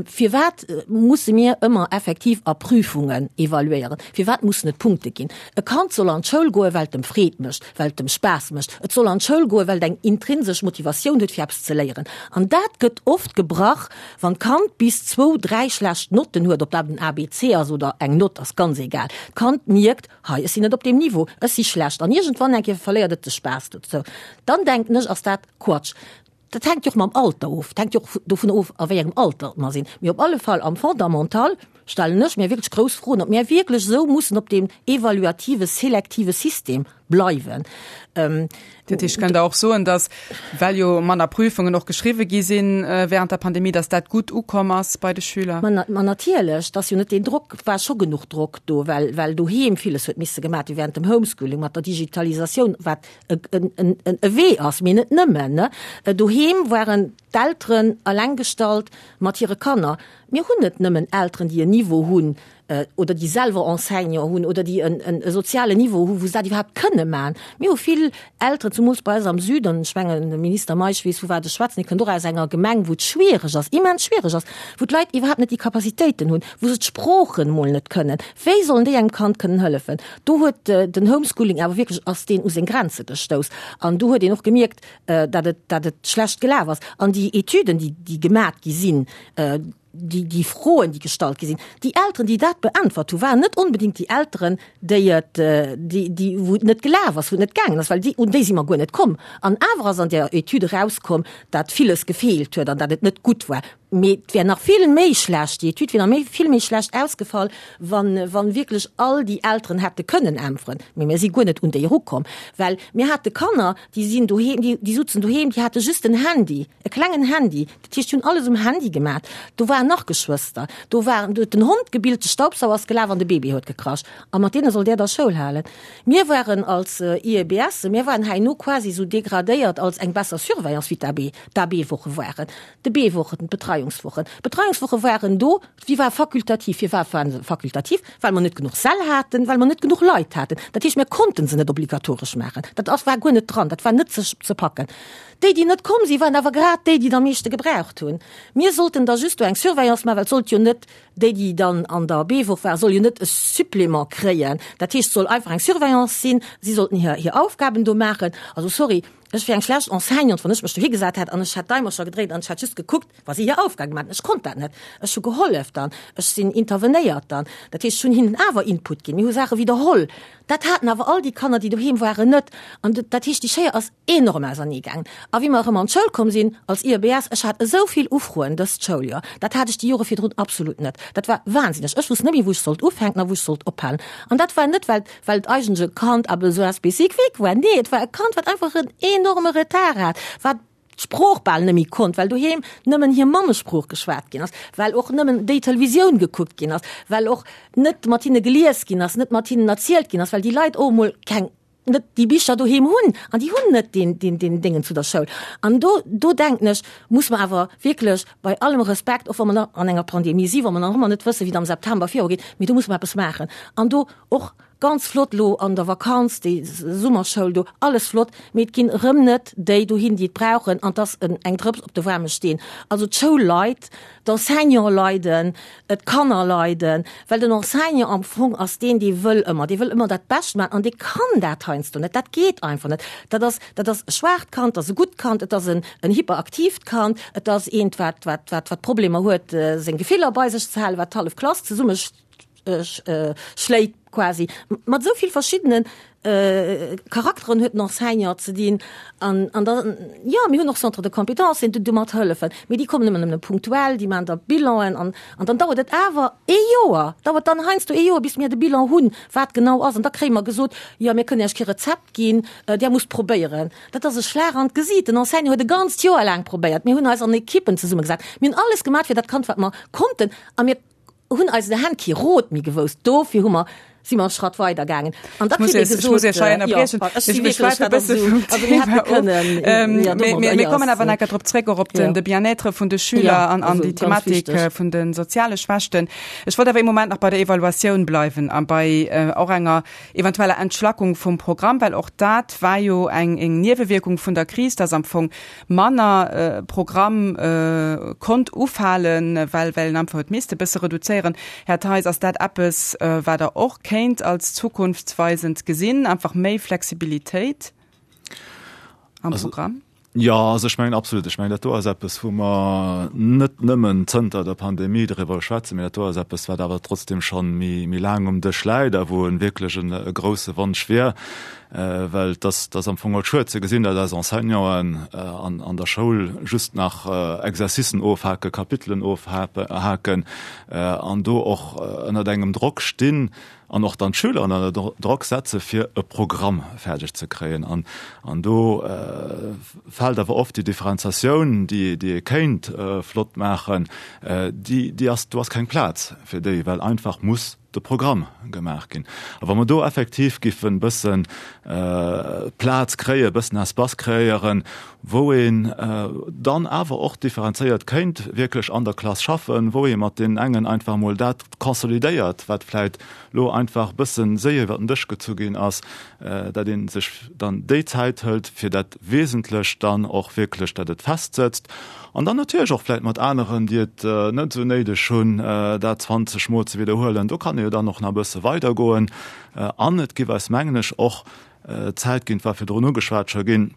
Firwat musse mir ëmmer effektiv a Prüfungen evaluéieren? Firwat mussen et Punkte ginn? E Kand soll an d'Schoul goen, well et em Freed mécht, well et em Spaass mécht. Et soll an d'Schoul goen, well et eng intrinsesch Motivatioun huet, fir eppes ze léieren. An dat gëtt oft gebrach, Wann d'Kand bis zwou, dräi schlecht Notten huet, ob dat en ABC ass oder eng Nott, ass ganz egal, d'Kand mierkt, hei, ech sinn net op deem Niveau, ech si schlecht an iergendwann eng Kéier verléiert et de Spaass dozou, dann denken ech, ass dat Quatsch. Dat hänkt jo och mam Alter of, dat hänkt jo och dovun of, a wéi engem Alter mer sinn. Mee op alle Fall am Fondamental stellen ech mir wierklech grouss Froen, ob mir wierklech esou mussen op deem evaluative, selektive System bleiwen. Dat heescht, kënnt Der och soen, datt, well jo manner Prüfungen och geschriwwe gi sinn während der Pandemie, datt dat gutt ukomm ass bei de Schüler? Ma natierlech, et ass jo net deen Drock, et war scho genuch Drock do, well, well doheem villes huet misse gemaat gi während dem Homeschooling, mat der Digitalisatioun, wat e, en, en, e Wee ass, mee net nëmmen, ne. Doheem waren d'Elteren eleng gestallt mat hire Kanner. Mir hunn net nëmmen Elteren, déi en Niveau hunn, oder déi selwer Enseignant hunn oder déi e sozialen Niveau hu wou se dat iwwerhaapt kënne maachen. Mir hu vill Elteren, zumools bei eis am Süden, ech mengen de Minister Meisch weess vu wat ech schwätzen, hie kënnt och aus enger Gemeng wou et schwiereg ass, immens schwiereg ass, wou d'Leit iwwerhaapt net déi Capacitéiten hunn, wou se d'Sproochen emol net kënnen. Wéi sollen déi engem Kand kënnen hëllefen? Do huet den Homeschooling awer wierklech, ass deen u seng Grenze gestouss an do huet een och gemierkt, datt et, datt et schlecht gelaf ass. An déi Etüden, déi, déi gemat gi sinn, déi, déi Froen, déi gestallt gi sinn, déi Elteren, déi dat beäntwert hu waren net onbedéngt déi Elteren, déi et, déi, déi, wou et net gelaf ass, wou et net gaangen ass, well déi, un déi si mer guer net komm. An awer ass an där Etüd erauskomm, dat villes gefeelt huet an dat et net gutt war. Mee et wär nach vill méi schlecht, déi Etüd wier nach méi, vill méi schlecht ausgefall, wann, wann wierklech all déi Elteren hätte kënnen äntweren. Mee mir si guer net un déi erukomm, well mir hate Kanner, déi sinn doheem, déi, déi sutzen doheem, déi hate just en Handy, e klengen Handy, Dat heescht, déi hunn alles um Handy gemat. Do waren nach Geschwëster, do waren, do huet den Hond gebillt, de Staubsauer ass gelaf an de Baby huet gekrasch. A mat deene sollt Där da Schoul halen. Mir waren als IEBS, mir waren herno quasi esou degradéiert als eng besser Surveillance wéi d'AB, d'AB-Woche waren, de B-Wochen, d'Betreiungswochen. D'Betreiungswoche waren do, déi ware fakultativ. Firwat waren se fakultativ? Well mer net genuch Säll haten, well mer net genuch Leit haten. Dat heescht, mir konnten se net obligatoresch maachen. Dat ass, war guer net dran, dat war net ze, ze packen. Déi, déi net komm sinn, waren awer grad déi, déi et am meeschte gebraucht hunn. Mir sollten da just do eng Surveillance maachen, well et sollt jo net, déi, déi dann an der B-Woch waren, soll jo net e Supplément kréien. Dat heescht, et soll einfach eng Surveillance sinn, si sollten hir, hir Aufgaben do maachen. Also sorry, ech wier eng schlecht Enseignante, wann ech mech dohi gesat hätt an ech hätt d'Daimercher gedréit an ech hätt just gekuckt, wa si hir Aufgabe gemaach hätten. Ech konnt dat net. Ech hu gehollef dann, ech sinn intervenéiert dann. Dat heescht, ech hunn hinnen awer Input ginn. Mir hu Saache widderholl. Dat haten awer all déi Kanner, déi doheem waren, net. An dat heescht, déi Schéier ass enorm ausernee gaangen. A wéi mer erëm an d'Schoul komm sinn als IEBS, ech hat esou vill Ufroen dëst Schouljoer, dat hat ech déi Jore virdrun absolut net. Dat war wahnsinneg. Ech wusst net méi, wou ech sollt ufänken a wou ech sollt ophalen. An dat war net, well, well et eigentlech e Kand à besoins spécifiques war. Nee, et war e Kand, wat einfach en enorme Retard hat, wat d'Sprooch bal net méi konnt, well doheem nëmmen hir Mammesprooch geschwat ginn ass, well och nëmmen déi Televisioun gekuckt ginn ass, well och net mat hinne gelies ginn ass, net mat hinnen erzielt ginn ass, well déi Leit och emol keng, net déi Bicher doheem hunn an déi hunn net deen, deen, deen Déngen zu der Schoul. An do, do denken ech, muss mer awer wierklech bei allem Respekt, och wa mer nach an enger Pandemie sinn, wa mer nach ëmmer net wëssen, wéi et am September virugeet, mee do muss mer eppes maachen an do och. Ganz flott elo an der Vakanz, déi Summerschoul do, alles flott, mee et ginn erëm net déi dohin, déi et brauchen, an et ass eng Drëps op de waarme Steen. Also d'Schoul leit, d'Enseignante leiden, d'Kanner leiden, well den Enseignant am Fong ass deen, dee wëll ëmmer, dee wëll ëmmer dat Bescht maachen an dee kann dat heiansdo net, dat geet einfach net. Dat ass, dat ass e schwaacht Kand, dat ass e gutt Kand, et ass en hyperaktiivt Kand, et ass eent, wat, wat, wat, wat Problemer huet, seng Gefiller bei sech ze halen, wat d'hallef Klass zesumme schléit quasi. Mat esou vill verschiddene Charakteren huet den Enseignant ze dinn. An, an da, jo, mir hunn och Centres de compétences, déi domat hëllefen, mee déi kommen ëmmer nëmmen punktuell, déi maachen da Bilanen an, an dann dauert et awer ee Joer, dauert dann heiansdo ee Joer, bis mir de Bilan hunn, wat genau ass. An da kréie mer gesot, jo, mir kënnen Iech kee Rezept ginn, Där musst probéieren. Dat ass e Schlag an d'Gesiit. Den Enseignant huet e ganzt Joer laang probéiert. Mir hunn eis an Ekippen zesummegesat. Mir hunn alles gemaach fir dat Kand, wat mer konnten. A mir hunn eis Hänn kee Rot méi gewousst. Dofir hu mer, si mer e Schratt weider gaangen. An da kritt ee gesot, jo, ech si wierklech, dat ass esou, also mir hätte kënnen, jo, domadder, Mir kommen awer nach eng Kéier drop zréck, och op den, de Bien-être vun de Schüler an, an déi Thematik vun de soziale Schwächten. Ech wollt awer ee Moment nach bei der Evaluatioun bleiwen a bei och enger eventueller Entschlackung vum Programm, well och dat war jo eng, eng Niewewierkung vun der Kris, dass am Fong manner Programm konnt ufalen, well well een einfach huet misste bësse reduzéieren. Här Theis, ass dat eppes, wat Der och kéint als zukunftsweisend gesinn, einfach méi Flexibilitéit am Programm? Jo, also ech mengen absolut. Ech mengen, dat do ass eppes, wou mer net nëmmen zënter der Pandemie driwwer schwätzen, mee dat do ass eppes, wat awer trotzdem schonn méi, méi laang um Dësch läit a wou e wierklech e grouse Wonsch wier, Well et ass, et ass am Fong och schued ze gesinn, datt eis Enseignanten an, an der Schoul just nach Exercicen ofhaken, Kapitelen ofhaken an do och ënnert engem Drock stinn an och dann d'Schüler ënner Drock setze fir e Programm fäerdeg ze kréien. An, an do fält awer oft déi Differenziatioun, déi, déi ee kéint flott maachen, déi, déi ass, do ass keng Plaz fir déi, well einfach muss de Programm gemaach ginn. A wa mer do effektiv giffen e bëssen Plaz kréien, e bëssen Espace kreéieren, wou een dann awer och differenzéiert kéint wierklech an der Klass schaffen, wou ee mat deenen engen einfach emol dat consolidéiert, wat vläicht elo einfach e bësse séier iwwer den Dësch gezu ginn ass, dat ee sech dann déi Zäit hëlt, fir dat Wesentlecht dann och wierklech, dat et festsëtzt. An dann natierlech och vläit mat aneren, déi et net esou néideg hunn, dat 20 Mol ze widderhuelen. Do kann ee jo dann och nach e bësse weidergoen. An et géif eis, mengen ech, och Zäit ginn, et war virdrun ugeschwat scho ginn,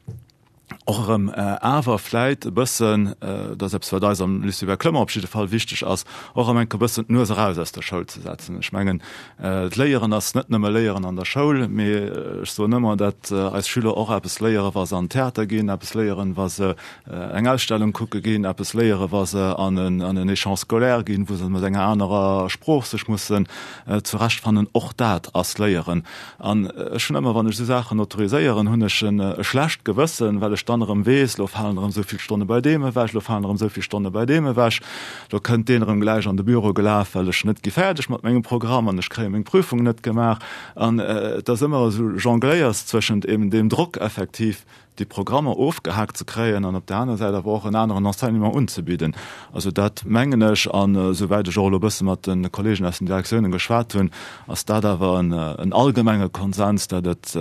och erëm awer vläit e bëssen, dat ass eppes, wat eis am Lycée Hubert Clement op jidde Fall wichteg ass, och erëm eng Kéier e bëssen d'Nues eraus aus der Schoul ze setzen. Ech mengen, d'Léieren ass net nëmme Léieren an der Schoul, mee ech soen ëmmer, dat eis Schüler och eppes léieren, wa se an den Theater ginn, eppes léieren, wa se eng Ausstellung kucke ginn, eppes léiere wa se an en Échange scolaire ginn, wou se mat enger anerer Sprooch sech mussen zurechtfannen. Och dat ass Léieren. An ech hunn ëmmer, wann ech esou Saachen autoriséieren, hunn ech e schlecht Gewëssen, well ech dann erëm weess, elo falen erëm esou vill Stonne bei deem ewech, elo falen erëm esou vill Stonne bei deem ewech, elo kënnt deen erëm gläich an de Büro gelaf, well ech net gi fäerdeg mat mengem Programm an ech kréie meng Prüfung net gemaach. An et ass ëmmer esou Jongléiers zwëschent eben deem Drock effektiv, déi Programmer ofgehaakt ze kréien an op där aner Säit awer och en aneren Enseignement unzebidden. Also dat mengen ech, an esouwäit ech och elo e bësse mat de Kollegen aus den Direktiounen geschwat hunn, ass dat awer en allgemenge Konsens, datt et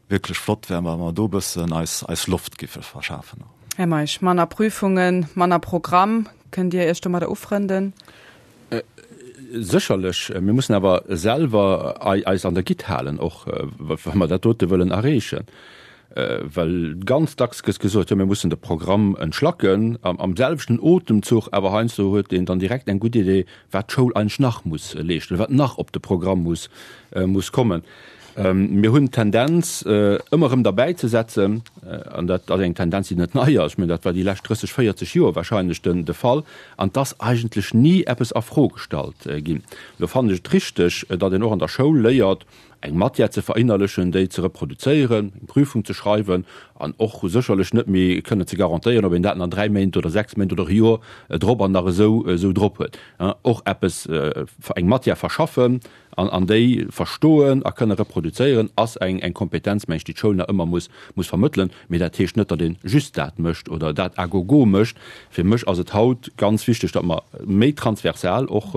wierklech flott wär, wa mer do e bëssen eis eis Loft giffe verschafen. Här Meisch, manner Prüfungen, manner Programm, kënnt Dir Iech domadder ufrënden? Sécherlech. Mir mussen awer selwer eis an der Gitt halen, och wa mer dat dote wëllen erreechen. Well ganz dacks gëtt gesot, jo mir mussen de Programm entschlacken. Am selwechten Otemzuch awer heiansdo huet een dann direkt eng gutt Idee, wat d'Schoul eigentlech nach muss leeschten, wat nach op de Programm muss muss kommen. Mir hunn d'Tendenz, ëmmer erëm derbäizesetzen, an dat ass eng Tendenz, déi net nei ass, ech mengen, dat war déi lescht 30, 40 Joer wahrscheinlech de Fall, an et ass eigentlech ni eppes a Fro gestallt ginn. Lo fannen ech et richteg, datt een och an der Schoul léiert, eng Matière ze verinnerlechen, déi ze reproduzéieren, eng Prüfung ze schreiwen an och sécherlech net méi kënnen ze garantéieren, ob een dat an dräi Méint oder sechs Méint oder e Joer drop an nach esou drop huet. Och eppes, eng Matière verschaffen, An an déi verstoen a kënne reproduzéieren, ass eng eng Kompetenz, meng ech, déi d'Schoul nach ëmmer muss muss vermëttelen. Mee dat heescht net, datt ee just dat mécht oder dat à gogo mécht. Fir mech ass et haut ganz wichteg, datt mer méi transversal och.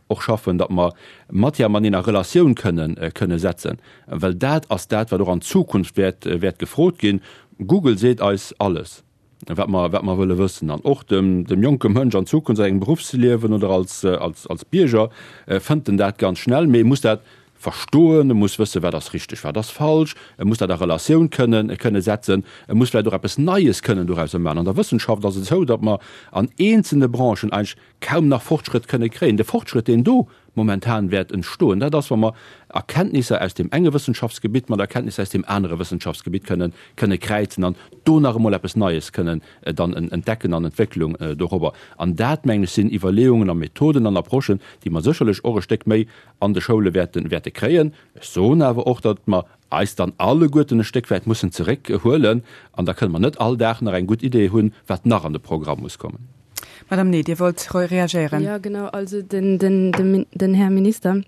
och schaffen, datt mer Matière mateneen a Relatioun kënnen, kënne setzen, well dat ass dat, wat och an Zukunft wäert, wäert gefrot ginn. Google seet eis alles, wat mer, wat mer wëlle wëssen. An och dem, dem jonke Mënsch an Zukunft a sengem Beruffsliewen oder als, als, als Bierger fënnt en dat ganz schnell, mee e muss dat verstoen, e muss wëssen, wat ass richteg, wat ass falsch, e muss dat a Relatioun kënnen, kënne setzen, e muss vläicht och eppes Neies kënnen dorauser maachen. An der Wëssenschaft ass et esou, datt mer an eenzelne Branchen eigentlech kaum nach Fortschrëtt kënne kréien. De Fortschrëtt, deen do momentan wäert entstoen, dat ass, wa mer Erkenntnisser aus deem enge Wëssenschaftsgebitt mat Erkenntnisser aus deem anere Wëssenschaftsgebitt kënnen, kënne kräizen an do nach emol eppes Neies kënnen dann entdecken an Entwécklung dorobber. An dat, mengen ech, sinn Iwwerleeungen a Methoden an Approchen, déi mer sécherlech och e Stéck méi an de Schoule wäerten, wäerte kréien. Ech soen awer och, datt mer eis dann alleguerten e Stéck wäit mussen zeréckhuelen an da kënne mer net all Dag nach eng gutt Idee hunn, wat nach an de Programm muss kommen. Madame Ney, Dir wollt reagéieren. Jo, genau. Also den, den, den Här Minister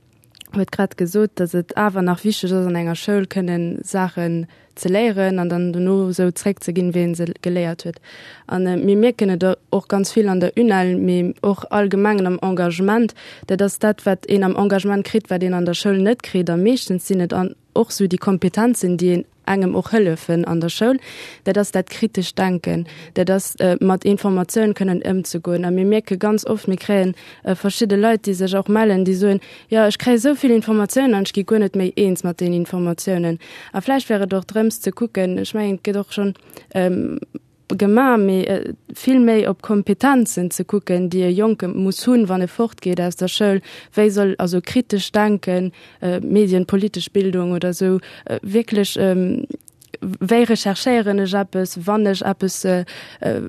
huet grad gesot, datt et awer nach wichteg ass, an enger Schoul kënnen Saachen ze léieren an dann dono esou zréckzeginn, wéi ee se geléiert huet. A mir mierken et och ganz vill an der UNEL, mee och allgemengen am Engagement, dat ass dat, wat een am Engagement kritt, wat een an der Schoul net kritt. A meeschtens sinn et och esou déi Kompetenzen, déi een engem och hëllefen an der Schoul, dat ass dat kritescht Denken, dat ass mat Informatioun kënnen ëmzegoen. A mir mierke ganz oft, mir kréien verschidde Leit, déi sech och mellen, déi soen, Jo, ech kréie sou vill Informatiounen an ech gi guer net méi eens mat deenen Informatiounen. A vläicht wär et och drëms ze kucken, ech mengen, et gëtt och schonn gemaach, mee vill méi op Kompetenzen ze kucken, déi e Jonke muss hunn, wann e fortgeet aus der Schoul, wéi soll also kritesch denken, medienpolitesch Bildung oder esou, wierklech wéi recherchéieren ech eppes, wann ech eppes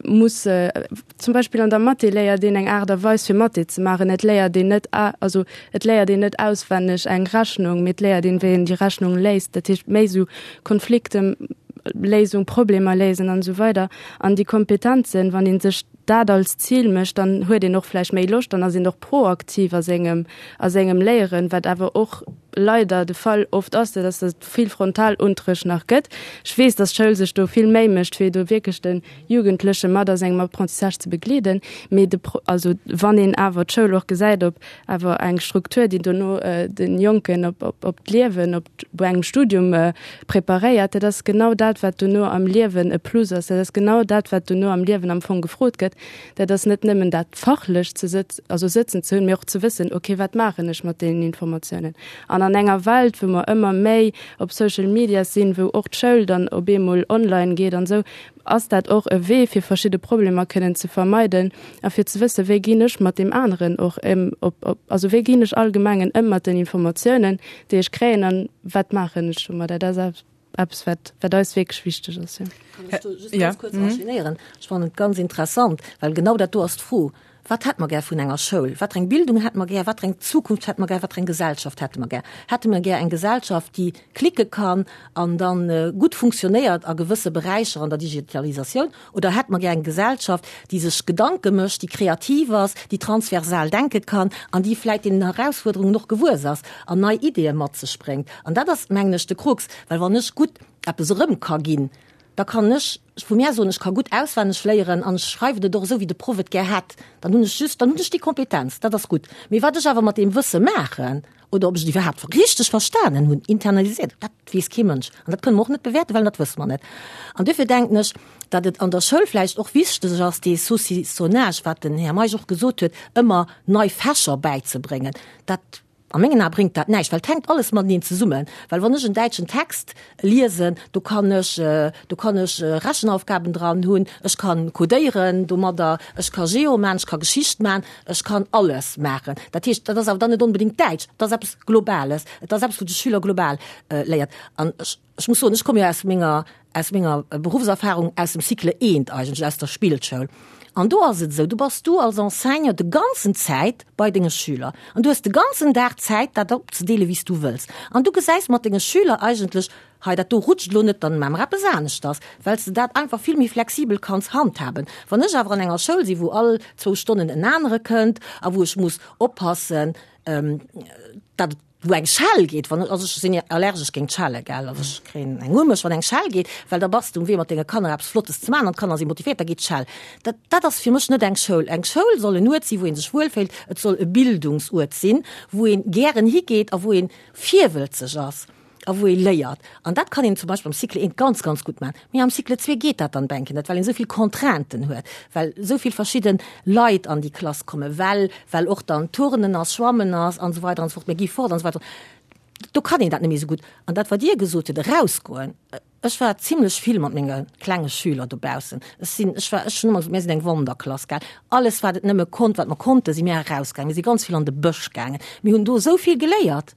muss, zum Beispill an der Mathé léiert een eng Aart a Weis fir Mathé ze maachen, et léiert een net, also et léiert een net auswenneg eng Rechnung, mee et léiert een, wéi een déi Rechnung léist, dat heescht méi esou Konflikteléisung, Problemer léisen an esou weider. An déi Kompetenzen, wann ee sech dat als Zil mécht, dann huet een och vläicht méi Loscht, dann ass een och proaktiv a sengem, a sengem Léieren, wat awer och leider de Fall oft ass, dat ass, datt et vill Frontalunterrecht nach gëtt. Ech weess, datt d'Schoul sech do vill Méi mécht, fir do wierklech de Jugendleche mat a sengem Apprentissage ze begleeden. Mee de, also wann een awer d'Schoul och gesäit op awer eng Struktur, déi dono de Jonken op, op, op d'Liewen, op engem Studium preparéiert, dat ass genau dat, wat dono am Liewen e Plus ass. Dat ass genau dat, wat dono am Liewen am Fong gefrot gëtt. Dat ass net nëmmen dat fachlech ze sëtz, also sëtzen ze hunn, mee och ze wëssen, okay, wat maachen ech mat deenen Informatiounen? An an enger Welt, wou mer ëmmer méi op Social Media sinn, wou och d'Schoul dann op eemol online geet an esou, ass dat och e Wee, fir verschidde Problemer kënnen ze vermeiden a fir ze wëssen, wéi ginn ech mat deem aneren och ëm, op, op, also wéi ginn ech allgemengen ëm mat den Informatiounen, déi ech kréien an wat maachen ech domadder? Dat ass eppes, wat, wat eis wierklech wichteg ass, jo. Kann ech do just ganz kuerz enchaînéieren? Ech fannen et ganz interessant, well genau dat do ass d'Fro, Wat hätte mer gär vun enger Schoul? Wat fir eng Bildung hätte mer gär? Wat fir eng Zukunft hätte mer gär? Wat fir eng Gesellschaft hätte mer gär? Hätte mer gär eng Gesellschaft, déi klicke kann an dann gutt funktionéiert a gewësse Beräicher an der Digitalisatioun? Oder hätte mer gär eng Gesellschaft, déi sech Gedanke mécht, déi kreativ ass, déi transversal denke kann an déi vläicht deenen Erausfuerderungen och gewuess ass an nei Ideeë mat sech bréngt? An dat ass, mengen ech, de Krux, well wann ech gutt eppes erëm ka ginn, da kann ech vu mär soen, ech ka gutt auswenneg léieren an ech schreiwen et och esou, wéi de Proff et gär hätt, dann hunn ech just, dann hunn ech déi Kompetenz, dat ass gutt. Mee wat ech awer mat deem Wësse maachen oder ob ech et iwwerhaapt richteg verstanen hunn, internalisiert, dat weess kee Mënsch an dat kënne mer och net bewäerten, well dat wësse mer net. An duerfir denken ech, datt et an der Schoul vläicht och wichteg ass, dee Saucissonnage, wat den Här Meisch och gesot huet, ëmmer nei Fächer bäizebréngen, dat A mengen Ae bréngt dat näischt, well et hänkt alles mateneen zesummen. Well wann ech en däitschen Text liesen, do kann ech, do kann ech Rechenaufgaben dran hunn, ech kann codéieren domadder, ech ka Geo maachen, ech ka Geschicht maachen, ech kann alles maachen. Dat heescht, dat ass awer dann net onbedéngt Däitsch, et ass eppes Globales, et ass eppes, wou de Schüler global léiert. An ech. Ech muss soen, ech komme jo aus menger, aus menger Beruffserfahrung aus dem Cycle eent eigentlech, aus der Spillschoul. An do ass et esou, do bass du als Enseignant de ganzen Zäit bei denge Schüler an du hues de ganzen Dag Zäit, dat opzedeele wéi s du wëlls. An du gesäis mat denge Schüler eigentlech. Hei, dat do rutscht elo net, dann maache mer eppes aneschters, well s de dat einfach vill méi flexibel kanns handhaben. Wann ech awer an enger Schoul sinn, wou all zwou Stonnen en anere kënnt a wou ech muss oppassen, datt et, wou eng Schell geet, wann, also ech sinn allergesch géint Schelle, gell, also ech kréien eng u mech, wann eng Schell geet, well da bass de um Wee mat denge Kanner eppes Flottes ze maachen an d'Kanner si motivéiert, da geet d'Schell. Dat, dat ass fir mech net eng Schoul. Eng Schoul soll en Uert sinn, wou ee sech wuelféilt, et soll e Bildungsuert sinn, wou ee gären higeet a wou ee virwëlzeg ass. a wou ee léiert. An dat kann een zum Beispill am Cycle 1 ganz, ganz gutt maachen. Mee am Cycle 2 geet dat dann bänken net, well een esou vill Contrainten huet, well esou vill verschidde Leit an déi Klass kommen, well, well och dann Turnen ass, Schwammen ass an esou weider an esou fort, mir gi fort an esou weider. Do kann een dat net méi esou gutt. An dat, wat Dir gesot hutt, erausgoen, ech war zimlech vill mat menge klenge Schüler dobaussen. Ech sinn, ech war, ech hunn ëmmer gesot, mir sinn eng Wanderklass, gell. Alles, wat et nëmme konnt, wat mer konnten, si mir erausgaangen. Mir si ganz vill an de Bësch gaangen. Mir hunn do esou vill geléiert.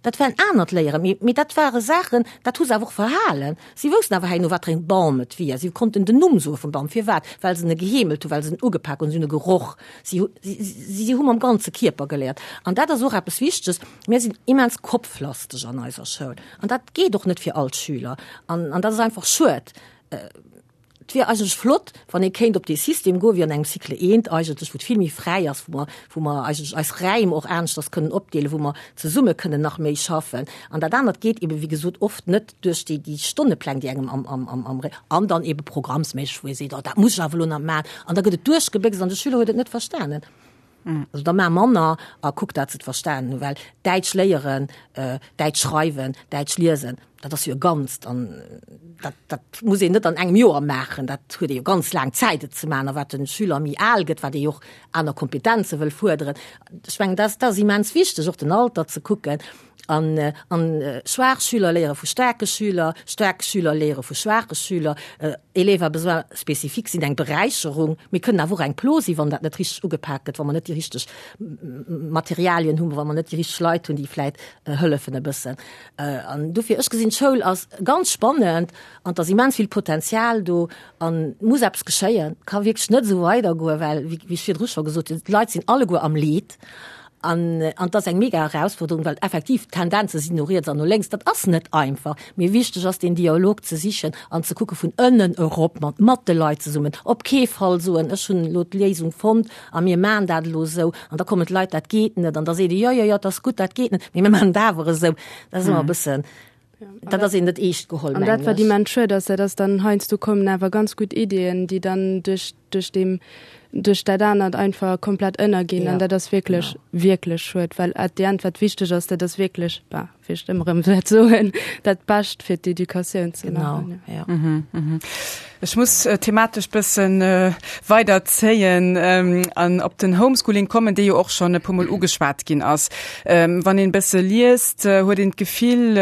Dat war en anert Léieren, mee, mee dat ware Saachen, dat hu se awer och verhalen. Si woussten awer herno, wat fir en Bam et wier. Si konnten den Numm soe vum Bam. Firwat? Well se en geheemelt hunn, well se en ugepak hunn, si hunn e geroch. Si hu, si, si hu mam ganze Kierper geléiert. An dat ass och eppes Wichteges. Mir sinn immens kopflasteg an eiser Schoul. An dat geet och net fir all d'Schüler. An, an dat ass einfach schued. Et wier eigentlech flott, wann ee kéint op dee System goen, wéi an engem Cycle eent eigentlech, wou et vill méi fräi ass, wou mer, wou mer eigentlech eis Räim och aneschters kënnen opdeelen, wou mer zesumme kënnen nach méi schaffen. An dat anert geet ebe wéi gesot oft net duerch déi, déi Stonnepläng, déi engem am, am, am, am Ré, an dann ebe programmsméisseg, wou ee seet, oh dat muss ech awer elo nach maachen. An da gëtt et duerchgebéchst an de Schüler huet et net verstanen. Also da maach manner a kuck, dat se et verstanen hunn, well Däitsch léieren, Däitsch schreiwen, Däitsch liesen, dat ass jo e Ganzt an dat, dat muss een net an engem Joer maachen. Dat huet ee jo ganz laang Zäit, et ze maachen. A wat de Schüler méi al gëtt, wat ee jo och aner Kompetenze wëll fuerderen. Ech mengen, dat, dat ass immens wichteg, och den Alter ze kucken. An, an schwaach Schüler léiere vu staarke Schüler, staark Schüler léiere vu schwaache Schüler. Élèves à besoins spécifiques sinn eng Beräicherung, mee kënnen awer och eng Plo sinn, wann dat net richteg ugepak gëtt, wa mer net déi richteg Materialien hunn, wa mer net déi richteg Leit hunn, déi vläit hëllefen e bëssen. An dofir, ech gesinn, d'Schoul ass ganz spannend an et ass immens vill Potenzial do an et muss eppes geschéien. Et ka wierklech net esou weidergoen, well, wéi ech virdru scho gesot hunn, d'Leit sinn alleguer am Leed. An an et ass eng mega Erausforderung, well effektiv d'Tendenze sinn no riets an no lénks. Dat ass net einfach. Mee wichteg ass, deen Dialog ze sichen an ze kucke vun ënnen erop, mat mat de Leit zesummen. Op kee Fall soen, ech hunn elo d'Léisung fonnt a mir maachen dat elo esou. An da kommen d'Leit, dat geet net. An da seet ee, jo, jo, jo, et ass gutt, dat geet net, mee mir maachen et awer esou. Dat ass ëmmer e bëssen, dat ass een net eescht geholl, An dat, wat immens schued ass, dat ass dann heiansdo kommen awer ganz gutt Iddien, déi dann duerch, duerch deem, duerch dat anert einfach komplett ënnerginn. An dat ass wierklech, wierklech schued, well at the end, wat wichteg ass, dat ass wierklech, bah, wéi ech et ëmmer erëm wäert soen, dat Bescht fir d'Educatioun ze maachen. Genau, ja. Ech muss thematesch bëssen weider zéien an op den Homeschooling kommen, dee jo och schonn e puermol ugeschwat ginn ass. Wann een e bësse liest, huet een d'Gefill,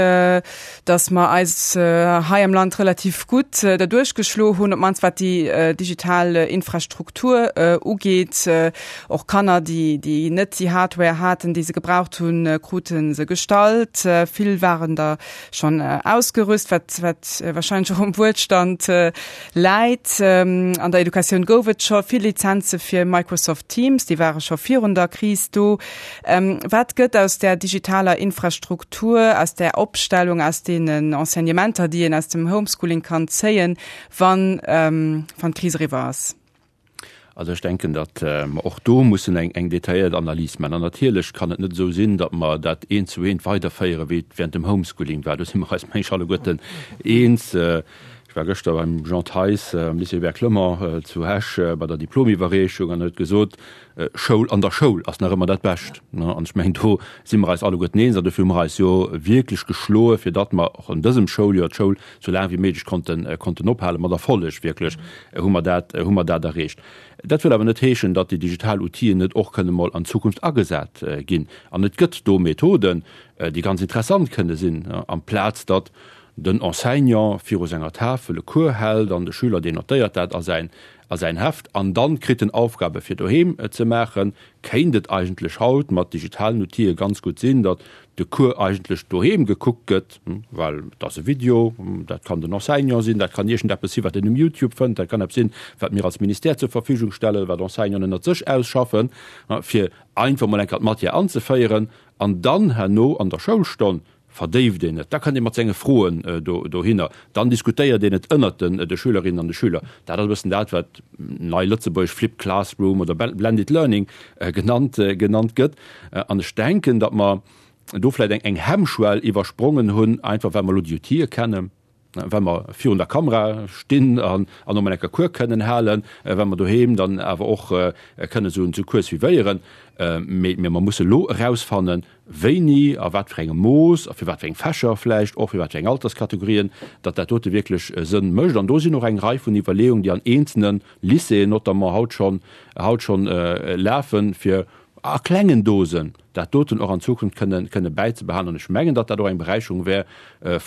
datt mer eis hei am Land relativ gutt derduerch geschlo hunn, op d'mannst wat déi digital Infrastruktur ugeet. Och Kanner, déi déi net déi Hardware haten, déi se gebraucht hunn, krute se gestallt. Vill waren der schonn ausgerüst, wat wat wahrscheinlech och um Wuelstand läit. An der Educatioun gouf et scho vill Lizenze fir Microsoft Teams, déi ware scho virun der Kris do. Wat gëtt aus där digitaler Infrastruktur, aus där Opstellung, aus deenen Enseignementer, déi een aus dem Homeschooling kann zéien, wann wann d'Kris eriwwer ass? Also ech denken, datt mer och do mussen eng eng detailléiert Analys maachen. An natierlech kann et net esou sinn, datt mer dat eent zu eent weiderféieren, wéi et während dem Homeschooling war. Do si mer eis, meng ech, alleguerten eens. Ech war gëschter beim Jean Theis am Lycée Hubert Clement zu Esch bei der Diplomiwwerreechung an e huet gesot, Schoul an der Schoul ass nach ëmmer dat Bescht. An ech mengen, do si mer eis alleguerten eens. An dofir hu mer eis jo wierklech geschloe fir datt mer och an dësem Schouljoer d'Schoul sou laang wéi méiglech konnten, konnten ophalen. Mat Erfolleg wierklech hu mer dat, hu mer dat erreecht. Dat wëll awer net heeschen, datt déi digital Outiller net och kënne mol an Zukunft agesat ginn. An et gëtt do Methoden, déi ganz interessant kënne sinn, amplaz datt den Enseignant viru senger Tafel e Cours hält an de Schüler, deen notéiert dat a säin, a säin Heft an dann kritt en Aufgabe fir doheem ze maachen, kéint et eigentlech haut mat digitalen Outile ganz gutt sinn, datt de Cours eigentlech doheem gekuckt gëtt, well et ass e Video, dat kann den Enseignant sinn, dat kann iergendeppes sinn, wat een um Youtube fënnt, dat kann eppes sinn, wat mir als Ministère zur Verfügung stellen, wat Enseignanten ënnert sech ausschaffen, fir einfach mol eng Kéier d'Matière anzeféieren an dann herno an der Schoulstonn. verdéift een et, da kënnt ee mat senge Froen dohinner, dann diskutéiert een et ënnert de Schülerinnen an de Schüler. Dat ass e bëssen dat, wat nei lëtzebuergesch Flipped Classroom oder Blended Learning genannt genannt gëtt. An ech denken, datt mer do vläicht eng eng Hemmschwell iwwersprongen hunn, einfach well mer elo déi Outile kennen, well mer virun der Kamera stinn an an och mol enker Cours kënnen halen, well mer doheem dann awer och kënnen esou en Cours suivéieren. Mee mer musse elo erausfannen, wéini, a wat fir engem Mooss a fir wat fir eng Fächer vläicht och, fir wat fir eng Alterskategorien, datt dat dote wierklech Sënn mécht. An do sinn och eng Rei vun Iwwerleeungen, déi an eenzelne Lycéeën notamment haut schonn haut schonn lafen, fir a klengen Dosen dat doten och an Zukunft kënne kënne bäizebehalen. An ech mengen, datt dat och eng Beräicherung wär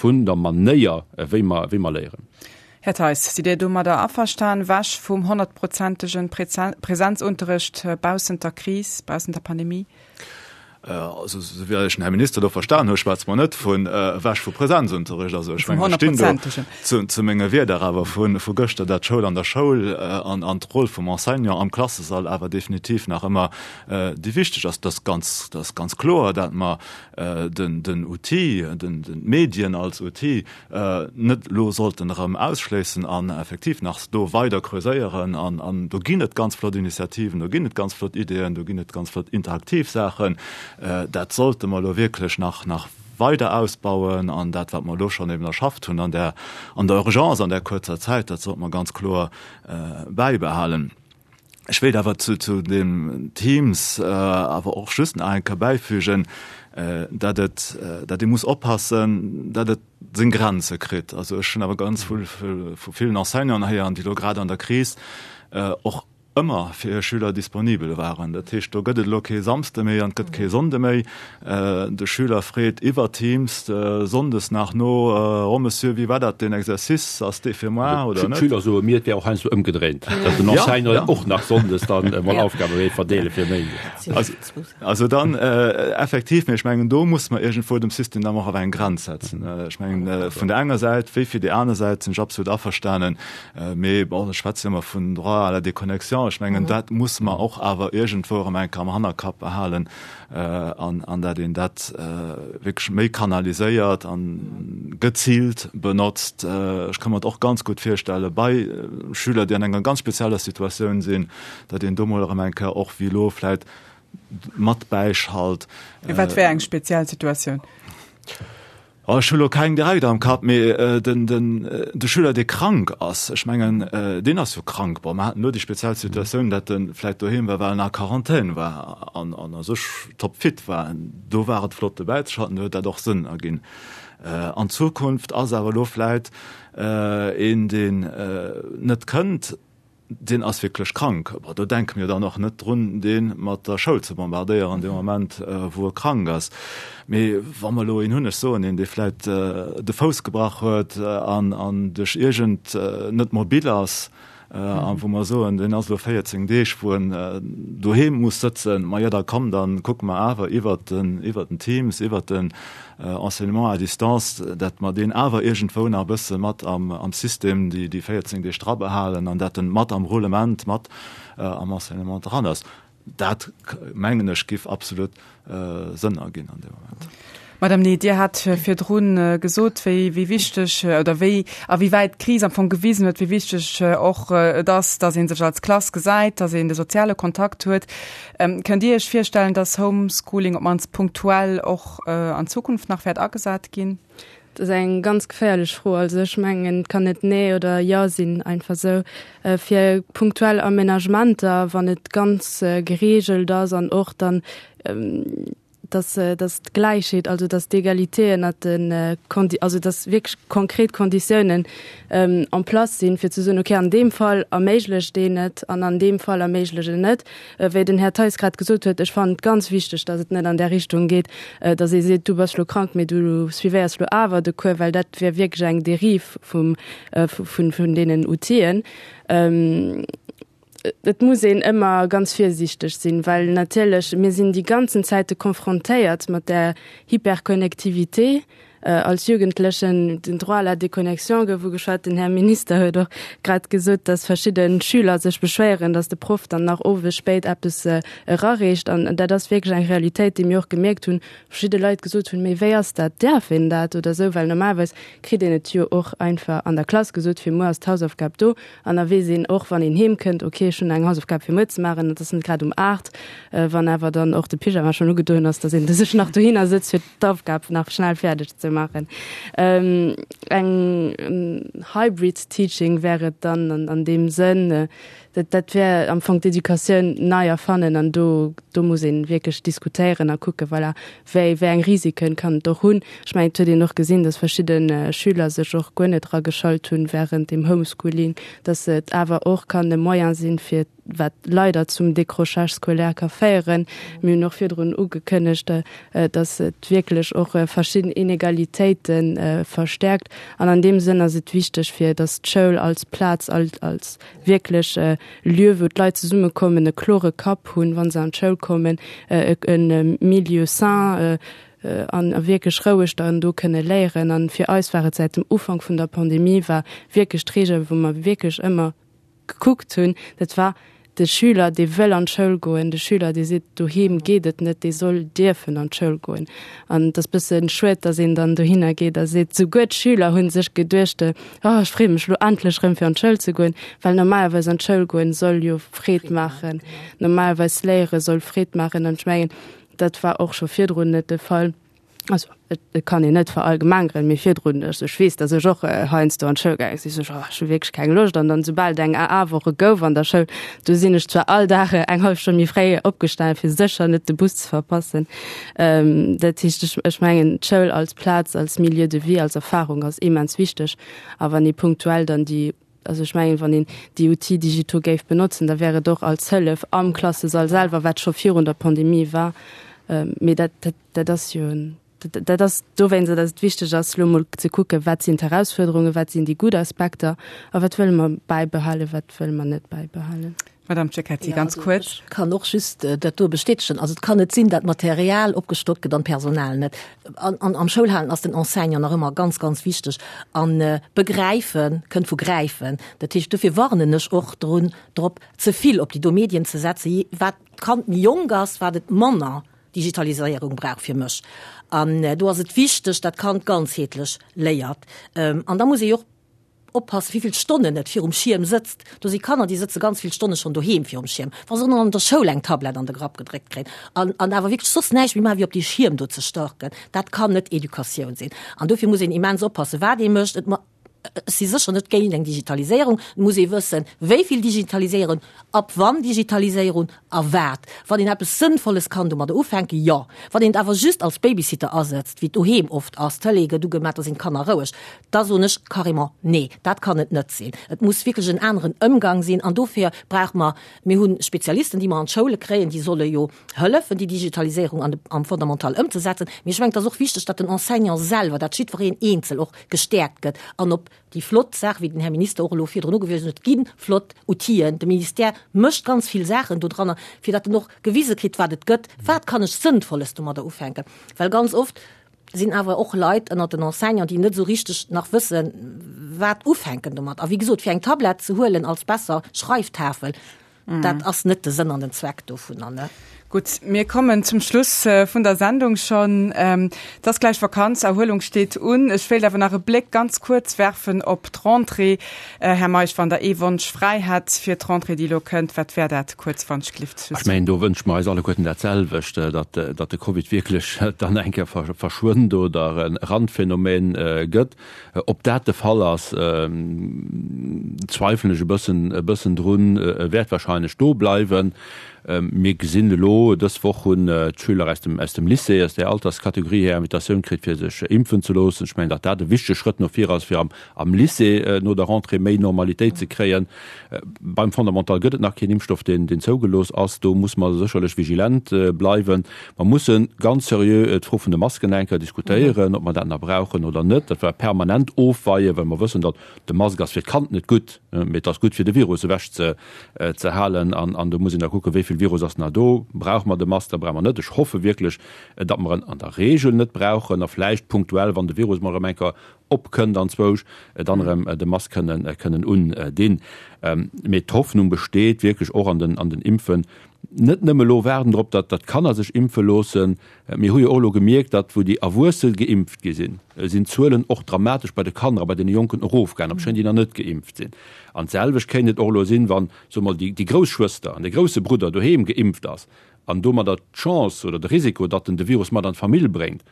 vun der Manéier, wéi mer wéi mer léieren. Här Theis, sidd Dir domadder averstan, wech vum honnertprozentegen Präsenzunterricht baussent der Kris, baussent der Pandemie? Also, esou wéi ech den Här Minister do verstan hu, schwätze mer net vun ewech vu Präsenzunterricht. Also ech mengen, ech stinn do zu menge Wierder awer vu vu gëschter, dat d'Schoul an der Schoul an an d'Roll vum Enseignant am Klassesall awer definitiv nach ëmmer déi wichteg ass. Dat ass ganz, dat ass ganz kloer, dat mer den den Outil, den den d'Medien als Outil net elo sollten erëm ausschléissen an effektiv nach do weider creuséieren. An, an do ginn et ganz flott Initiativen, do ginn et ganz flott Ideeën, do ginn et ganz flott interaktiv Saachen. Dat sollte mer elo wierklech nach, nach weider ausbauen. An dat, wat mer elo schonn eben erschafft hunn an der, an der Urgence, an där kuerzer Zäit, dat sollte mer ganz kloer bäibehalen. Ech wéilt awer zu, zu dem Teams awer och just nach eng Kéier bäifügen, dat et, dat ee muss oppassen, dat et seng Grenze kritt. Also ech hunn awer ganz vill vu villen Enseignanten héieren, déi elo grad an der Kris och ëmmer fir hir Schüler disponibel waren. Dat heescht, do gëtt et elo kee Samsde méi an et gëtt kee Sonnde méi. De Schüler freet iwwer Teams sonndes nach no, Oh Monsieur, wéi war dat deen Exercice, ass dee fir moar oder net? D'Schüler soe mir, et wär och heiansdo ëmgedréint, datt den Enseignant och nach sonndes dann emol Aufgabe wéilt verdeele fir méindes. Also dann effektiv, mee ech mengen, do muss mer iergendwou dem System dann och awer eng Grenz setzen. Ech mengen, vun der enger Säit wéi fir déi aner Säit sinn ech absolut averstanen, mee bon, ech schwätze jo ëmmer vun Droit à la déconnexion, ech mengen, dat muss mer och awer iergendwou erëm eng Kéier am Hannerkapp behalen, an an dat een dat wierklech méi kanaliséiert an geziilt benotzt. Ech ka mer et och ganz gutt virstelle bei Schüler, déi an enger ganz spezieller Situatioun sinn, datt een do mol erëm eng Kéier och wéi elo vläit mat bäischalt. Wat wär eng speziell Situatioun? Oh, ech hu lo keng direkt am Kapp, mee den, den, de Schüler, dee krank ass, ech mengen, deen ass jo krank. Bon, mer haten elo déi speziell Situatioun, dat e vläicht doheem war, well en a Quarantän war an, an a sech topfit war. Do war et flott dobäizeschalten, do huet dat och Sënn erginn. An Zukunft ass awer elo vläicht een, deen net kënnt, deen ass wierklech krank. Bon, do denke mir dann och net drun, dee mat der Schoul ze bombardéieren dee Moment, wou e krank ass. Mee wa mer elo een hunn, ech soen een, dee vläicht de Fouss gebrach huet an an duerch iergend net mobil ass a wou mer soen, deen ass elo 14 Deeg, wou en doheem muss sëtzen, ma jo, da komm, da kucke mer awer iwwert den iwwert den Teams, iwwert den Enseignement à distance, dat mer deen awer iergendwou nach e bësse mat am System déi 14 Deeg dra behalen an dat en mat am Roulement, mat am Enseignement dran ass. Dat, mengen ech, giff absolut Sënn erginn an deem Moment. Madame Ney, Dir hat virdru gesot, wéi wichteg oder wéi a wéi wäit d'Kris am Fong gewisen huet, wéi wichteg och et ass, datt ee sech als Klass gesäit, datt een de soziale Kontakt huet. Kënnt Dir Iech virstellen, dass Homeschooling op d'mannst punktuell och an Zukunft nach wäert agesat ginn? Dat ass eng ganz geféierlech Fro. Also ech mengen, et kann net Nee oder Jo sinn, einfach esou. Fir punktuell Aménagementer, wann et ganz gereegelt ass an och dann, dass, dass d'Gläichheet, also dass d'Egalité ënnert de Kondi, also dass wierklech konkret Konditiounen en place sinn, fir ze soen, okay, an deem Fall erméiglecht een et an an deem Fall erméiglecht en net. Wéi den Här Theis grad gesot huet, ech fannen et ganz wichteg, dass et net an där Richtung geet, dass ee seet, du bass lo krank, mee du suivéiers lo awer de Cours, well dat wär wierklech eng Dérive vum, vun, vun deenen Outill'en. Et muss een ëmmer ganz virsiichteg sinn, well natierlech mir sinn déi ganzen Zäite confrontéiert mat där Hyperconnectivité. Als Jugendlechen, den Droit à la déconnexion gouf ugeschwat. Den Här Minister huet och grad gesot, dass verschidde Schüler sech beschwéieren, dass de Proff dann nach owes spéit eppes erareecht. An dat ass wierklech eng Realitéit, déi mir och gemierkt hunn, verschidde Leit gesot hunn, Mee wéi ass dat, däerf een dat oder esou? Well normalerweis kritt een et jo och einfach an der Klass gesot, fir muer ass d'Hausaufgab do. An da weess een och, wann een heem kënnt, okay, ech hunn eng Hausaufgab fir muer ze maachen, dat ass net grad um 8, wann awer dann och de Pyjama schonn ugedoen ass, dass een sech nach dohinner sëtzt, fir d'Aufgab nach schnell fäerdeg ze maachen. Eng Hybrid Teaching wär et dann an deem Sënn, dat dat wär am Fong d'Educatioun nei erfannen an do do muss ee wierklech diskutéieren a kucken, voilà, wéi wéi eng Risiken kann et och hunn. Ech mengen, et huet een och gesinn, datt verschidde Schüler sech och guer net erageschalt hunn während dem Homeschooling, datt et awer och kann e Moyen sinn, fir wat leider zum Décrochage scolaire ka féieren. Mir hunn och virdrun ugekënnegt, dass et wierklech och verschidden Inegalitéite verstärkt. An an deem Sënn ass et wichteg, fir dass d'Schoul als Plaz, als wierklech Lieu, wou d'Leit zesummekommen, e klore Kapp hunn, wa se an d'Schoul kommen, e Milieu sain, an wierklech roueg dann do kënne léieren. An fir eis war et säit dem Ufank vun der Pandemie war wierklech d'Reegel, wou mer wierklech ëmmer gekuckt hunn, dat war de Schüler, dee wëll an d'Schoul goen, de Schüler, dee seet, doheem geet et net, dee soll dierfen an d'Schoul goen. An et ass bësse schued, datt een dann dohinner geet a seet, souguer d'Schüler hu sech geduecht, oh ech freeë mech elo endlech erëm fir an d'Schoul ze goen, well normalerweis an d'Schoul goen soll jo Freed maachen, normalerweis léiere soll Freed maachen. An ech mengen, dat war och scho virdrun net de Fall. Also et kann een net verallgemengeren, mee virdrun, also ech weess, datt ech och heiansdo an d'Schoul gaange sinn, sot ech, oh ech hu wierklech keng Loscht. An dann soubal et eng AA-Woche gouf an der Schoul, do sinn ech zwar all Dag eng hallef Stonn méi fréi opgestanen, fir sécher net de Bus ze verpassen. Dat heescht, ech ech mengen d'Schoul als Plaz, als Milieu de vie, als Erfarung ass immens wichteg. A wann ee punktuell dann déi Also ech mengen, wann een déi Outils digitaux géif benotzen, da wär et och als Hëllef am Klassesall selwer, wat scho virun der Pandemie war. Mee dat, dat, dat ass jo, dat ass dowéinst, datt et wichteg ass, elo emol ze kucken, wat sinn d'Herausfuerderungen, wat sinn déi gutt Aspekter a wat wëlle mer bäibehalen, wat wëlle mer net bäibehalen. Madame Cecchetti, ganz kuerz. Ech kann och just dat do bestätegen. Also et kann net sinn, dat Material opgestockt gëtt an d'Personal net. An, an am Schoulhalen ass den Enseignant nach ëmmer ganz, ganz wichteg. An begräifen kënnt vu gräifen. Dat heescht, dofir warnen ech och drun, drop, ze vill op déi do Medien ze setzen. Wat d'Kand méi jonk ass, wat et manner Digitaliséierung brauch fir mech. An do ass et wichteg, dat d'Kand ganzheetlech léiert. An da muss ee jo och Oppassen, wéi vill Stonnen et virum Schierm sëtzt. Do si Kanner, déi sëtze ganz vill Stonne schonn doheem virum Schierm, wa se och nach an der Schoul eng Tablett an de Grapp gedréckt kréien an, an awer wierklech soss näischt méi maachen, wéi op dee Schierm do ze starken. Dat kann net Educatioun sinn. An dofir muss een immens oppassen, wat ee mécht. Et, ech si sécher net géint eng Digitaliséierung. Et muss ee wëssen, wéi vill Digitaliséierung, ab wann Digitaliséierung a wat. Wann een eppes Sënnvolles kann domadder ufänken, jo. Wann een et awer just als Babysitter asetzt, wéi et doheem oft ass, d'Tëlee gëtt ugemaach, da sinn d'Kanner roueg, Da soen ech carrément, Nee, dat kann et net sinn. Et muss wierklech en aneren Ëmgang sinn. An dofir brauche mer, mir hu Spezialisten, déi mer an d'Schoule kréien, déi solle jo hëllefen, déi Digitaliséierung an de, am Fondamental ëmzesetzen. Mee ech mengen, et ass och wichteg, datt den Enseignant selwer, datt jiddwereen eenzel och gestäerkt gëtt an op déi flott Saach, wéi den Här Minister och elo virdrun ugewisen huet, et gi flott Outiller, de Ministère mécht ganz vill Saachen dodranner, fir datt en och gewise kritt, wat et gëtt, wat kann ech Sënnvolles domadder ufänken. Well ganz oft sinn awer och Leit ënnert den Enseignanten, déi net esou richteg nach wëssen, wat ufänken domat. A wéi gesot, fir eng Tablett ze huelen als besser Schreiftafel, dat ass net de Sënn an den Zweck dovunner, ne? Gutt, mir kommen zum Schluss vun der Sendung schonn. Et ass gläich Vakanz, Erhuelung steet un. Ech wéilt awer nach e Bléck ganz kuerz werfen op d'Rentrée. Här Meisch, wann Der ee Wonsch fräi hätt fir d'Rentrée, déi elo kënnt, wat wär dat kuerz, wann ech glift? Ech mengen, do wënsche mer eis alleguerten dat selwecht, datt de Covid wierklech dann eng Kéier verschwënnt oder e Randphänomen gëtt. Ob dat de Fall ass, zweifelen ech e bëssen, e bëssen drun. E wäert wahrscheinlech do bleiwen. Mir gesinn elo, dës Woch hunn d'Schüler aus dem, aus dem Lycée, aus där Alterskategorie hir Invitatioun kritt, fir sech impfen ze loossen. Ech mengen, datt dat e wichtege Schrëtt no vir ass, fir am am Lycée no der Rentrée méi Normalitéit ze kréien. Beim Fondamental gëtt et nach keen Impfstoff, deen zougelooss ass. Do muss mer sécherlech vigilent bleiwen. Mer musse ganz seriö d'Fro vun de Masken eng Kéier diskutéieren, ob mer dat nach brauchen oder net. Dat war permanent ofweien, well mer wëssen, datt de Mask ass fir d'Kand net gutt, mee et ass gutt fir de Virus ewech ze halen. An do muss een da kucken, wéi vill Virus ass nach do. Brauche mer de Mask oder brauche mer net? Ech hoffe wierklech, datt mer en an der Regel net brauchen a vläicht punktuell, wann de Virus mol erëm eng Kéier opkënnt anzwousch, dann erëm de Mask kënnen, kënnen undinn. Mee d'Hoffnung besteet wierklech och an den, an den Impfen. Net nëmme elo waarden drop, datt, datt d'Kanner sech impfe loossen. Mir hu jo och elo gemierkt, datt wou déi Erwuesse geimpft gi sinn, sinn d'Zuelen och dramatesch bei de Kanner a bei deene Jonken erofgaangen, obschonn déi nach net geimpft sinn. An d'selwecht kéint et och elo sinn, wann, soe mer, déi, déi grouss Schwëster an de grousse Brudder doheem geimpft ass an domadder d'Chance oder de Risiko, datt en de Virus mat an d'Famill bréngt,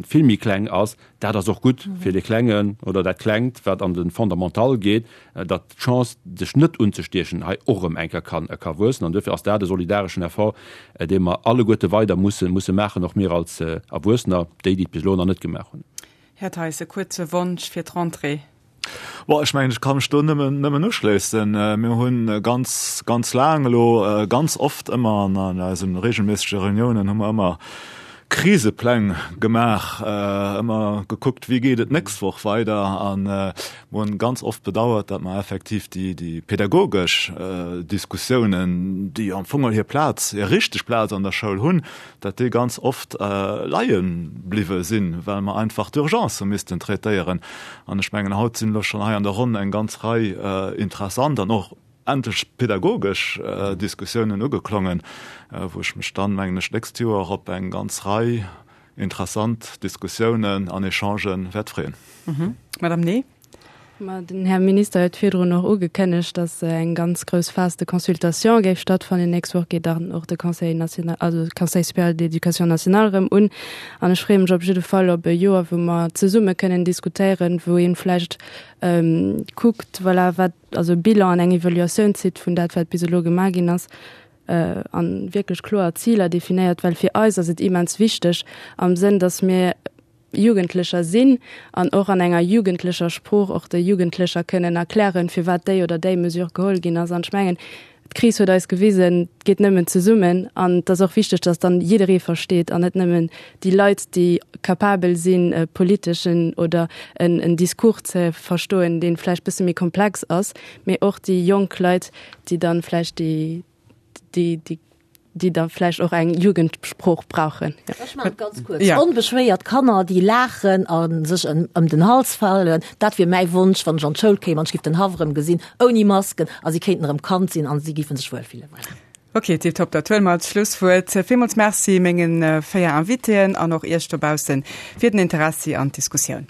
vill méi kleng ass. Dat ass och gutt fir dee Klengen oder dat Klengt, wat an de Fondamental geet, datt d'Chance, sech net unzestiechen, hei och erëm eng Kéier ka wuessen. An duerfir ass dat e solidareschen Effort, dee mer alleguerte weider musse musse maachen, och mir als Erwuessener, déi, déi et bis elo nach net gemaach hunn. Här Theis, e kuerze Wonsch fir d'Rentrée. Bon, ech mengen, ech ka mech do nëmmen, nëmmen uschléissen. Mir hunn ganz, ganz laang elo ganz oft ëmmer an an eise regelméissege Reuniounen hu mer ëmmer Krisepläng gemaach, ëmmer gekuckt, wéi geet et d'nächst Woch weider. A mer hunn ganz oft bedauert, datt mer effektiv déi, déi pedagogesch Diskussiounen, déi am Fong hir Plaz, hir richteg Plaz an der Schoul hunn, datt déi ganz oft leie bliwwe sinn, well mer einfach d'Urgence hu missten traitéieren. An ech mengen, haut sinn elo schonn hei an der Ronn eng ganz Rei interessant an och endlech pedagogesch Diskussiounen ugeklongen, wou ech mech dann, mengen ech, d'nächst Joer op eng ganz Rei interessant Diskussiounen an Echangen wäert freeën. Madame Ney. Ma den Här Minister huet virdrun och ugekënnegt, datt eng ganz grouss Phase de consultation géif stattfannen. Nächst Woch geet dann och de Conseil national, also de Conseil supérieur d'éducation nationale erëm un. An ech freeë mech op jidde Fall op e Joer, wou mer zesumme kënnen diskutéieren, wou ee vläicht kuckt, voilà, wat, also e Bilan an eng Evaluatioun zitt vun dat, wat bis elo gemaach ginn ass a wierklech kloer Ziler definéiert, well fir eis ass et immens wichteg am Sënn, datt mir Jugendlecher sinn an och an enger jugendlecher Sprooch och de Jugendlecher kënnen erklären, firwat déi oder déi Mesure geholl ginn ass. An ech mengen, d'Kris huet eis gewisen, et geet nëmmen zesummen. An et ass och wichteg, dass dann jidderee versteet an net nëmmen déi Leit, déi capabel sinn, e politeschen oder en en Discours ze verstoen, dee vläicht bësse méi komplex ass, mee och déi jonk Leit, déi dann vläicht déi, déi, déi déi da vläicht och eng Jugendsprooch brauchen. Ech maachen et ganz kuerz. Ja. Onbeschwéiert Kanner, déi laachen a sech ëm den Hals falen, dat wier mäi Wonsch, wann ech an d'Schoul kéim an ech géif den Haff erëm gesinn, ouni Masken, a si kéinten erëm Kand sinn a si géife sech wuel fillen. Voilà. Ok, tiptop, dat huele mer als Schlusswuert. Villmools Merci menge 4 Invitéen an och Iech dobaussen fir den Interessi an d'Diskussioun.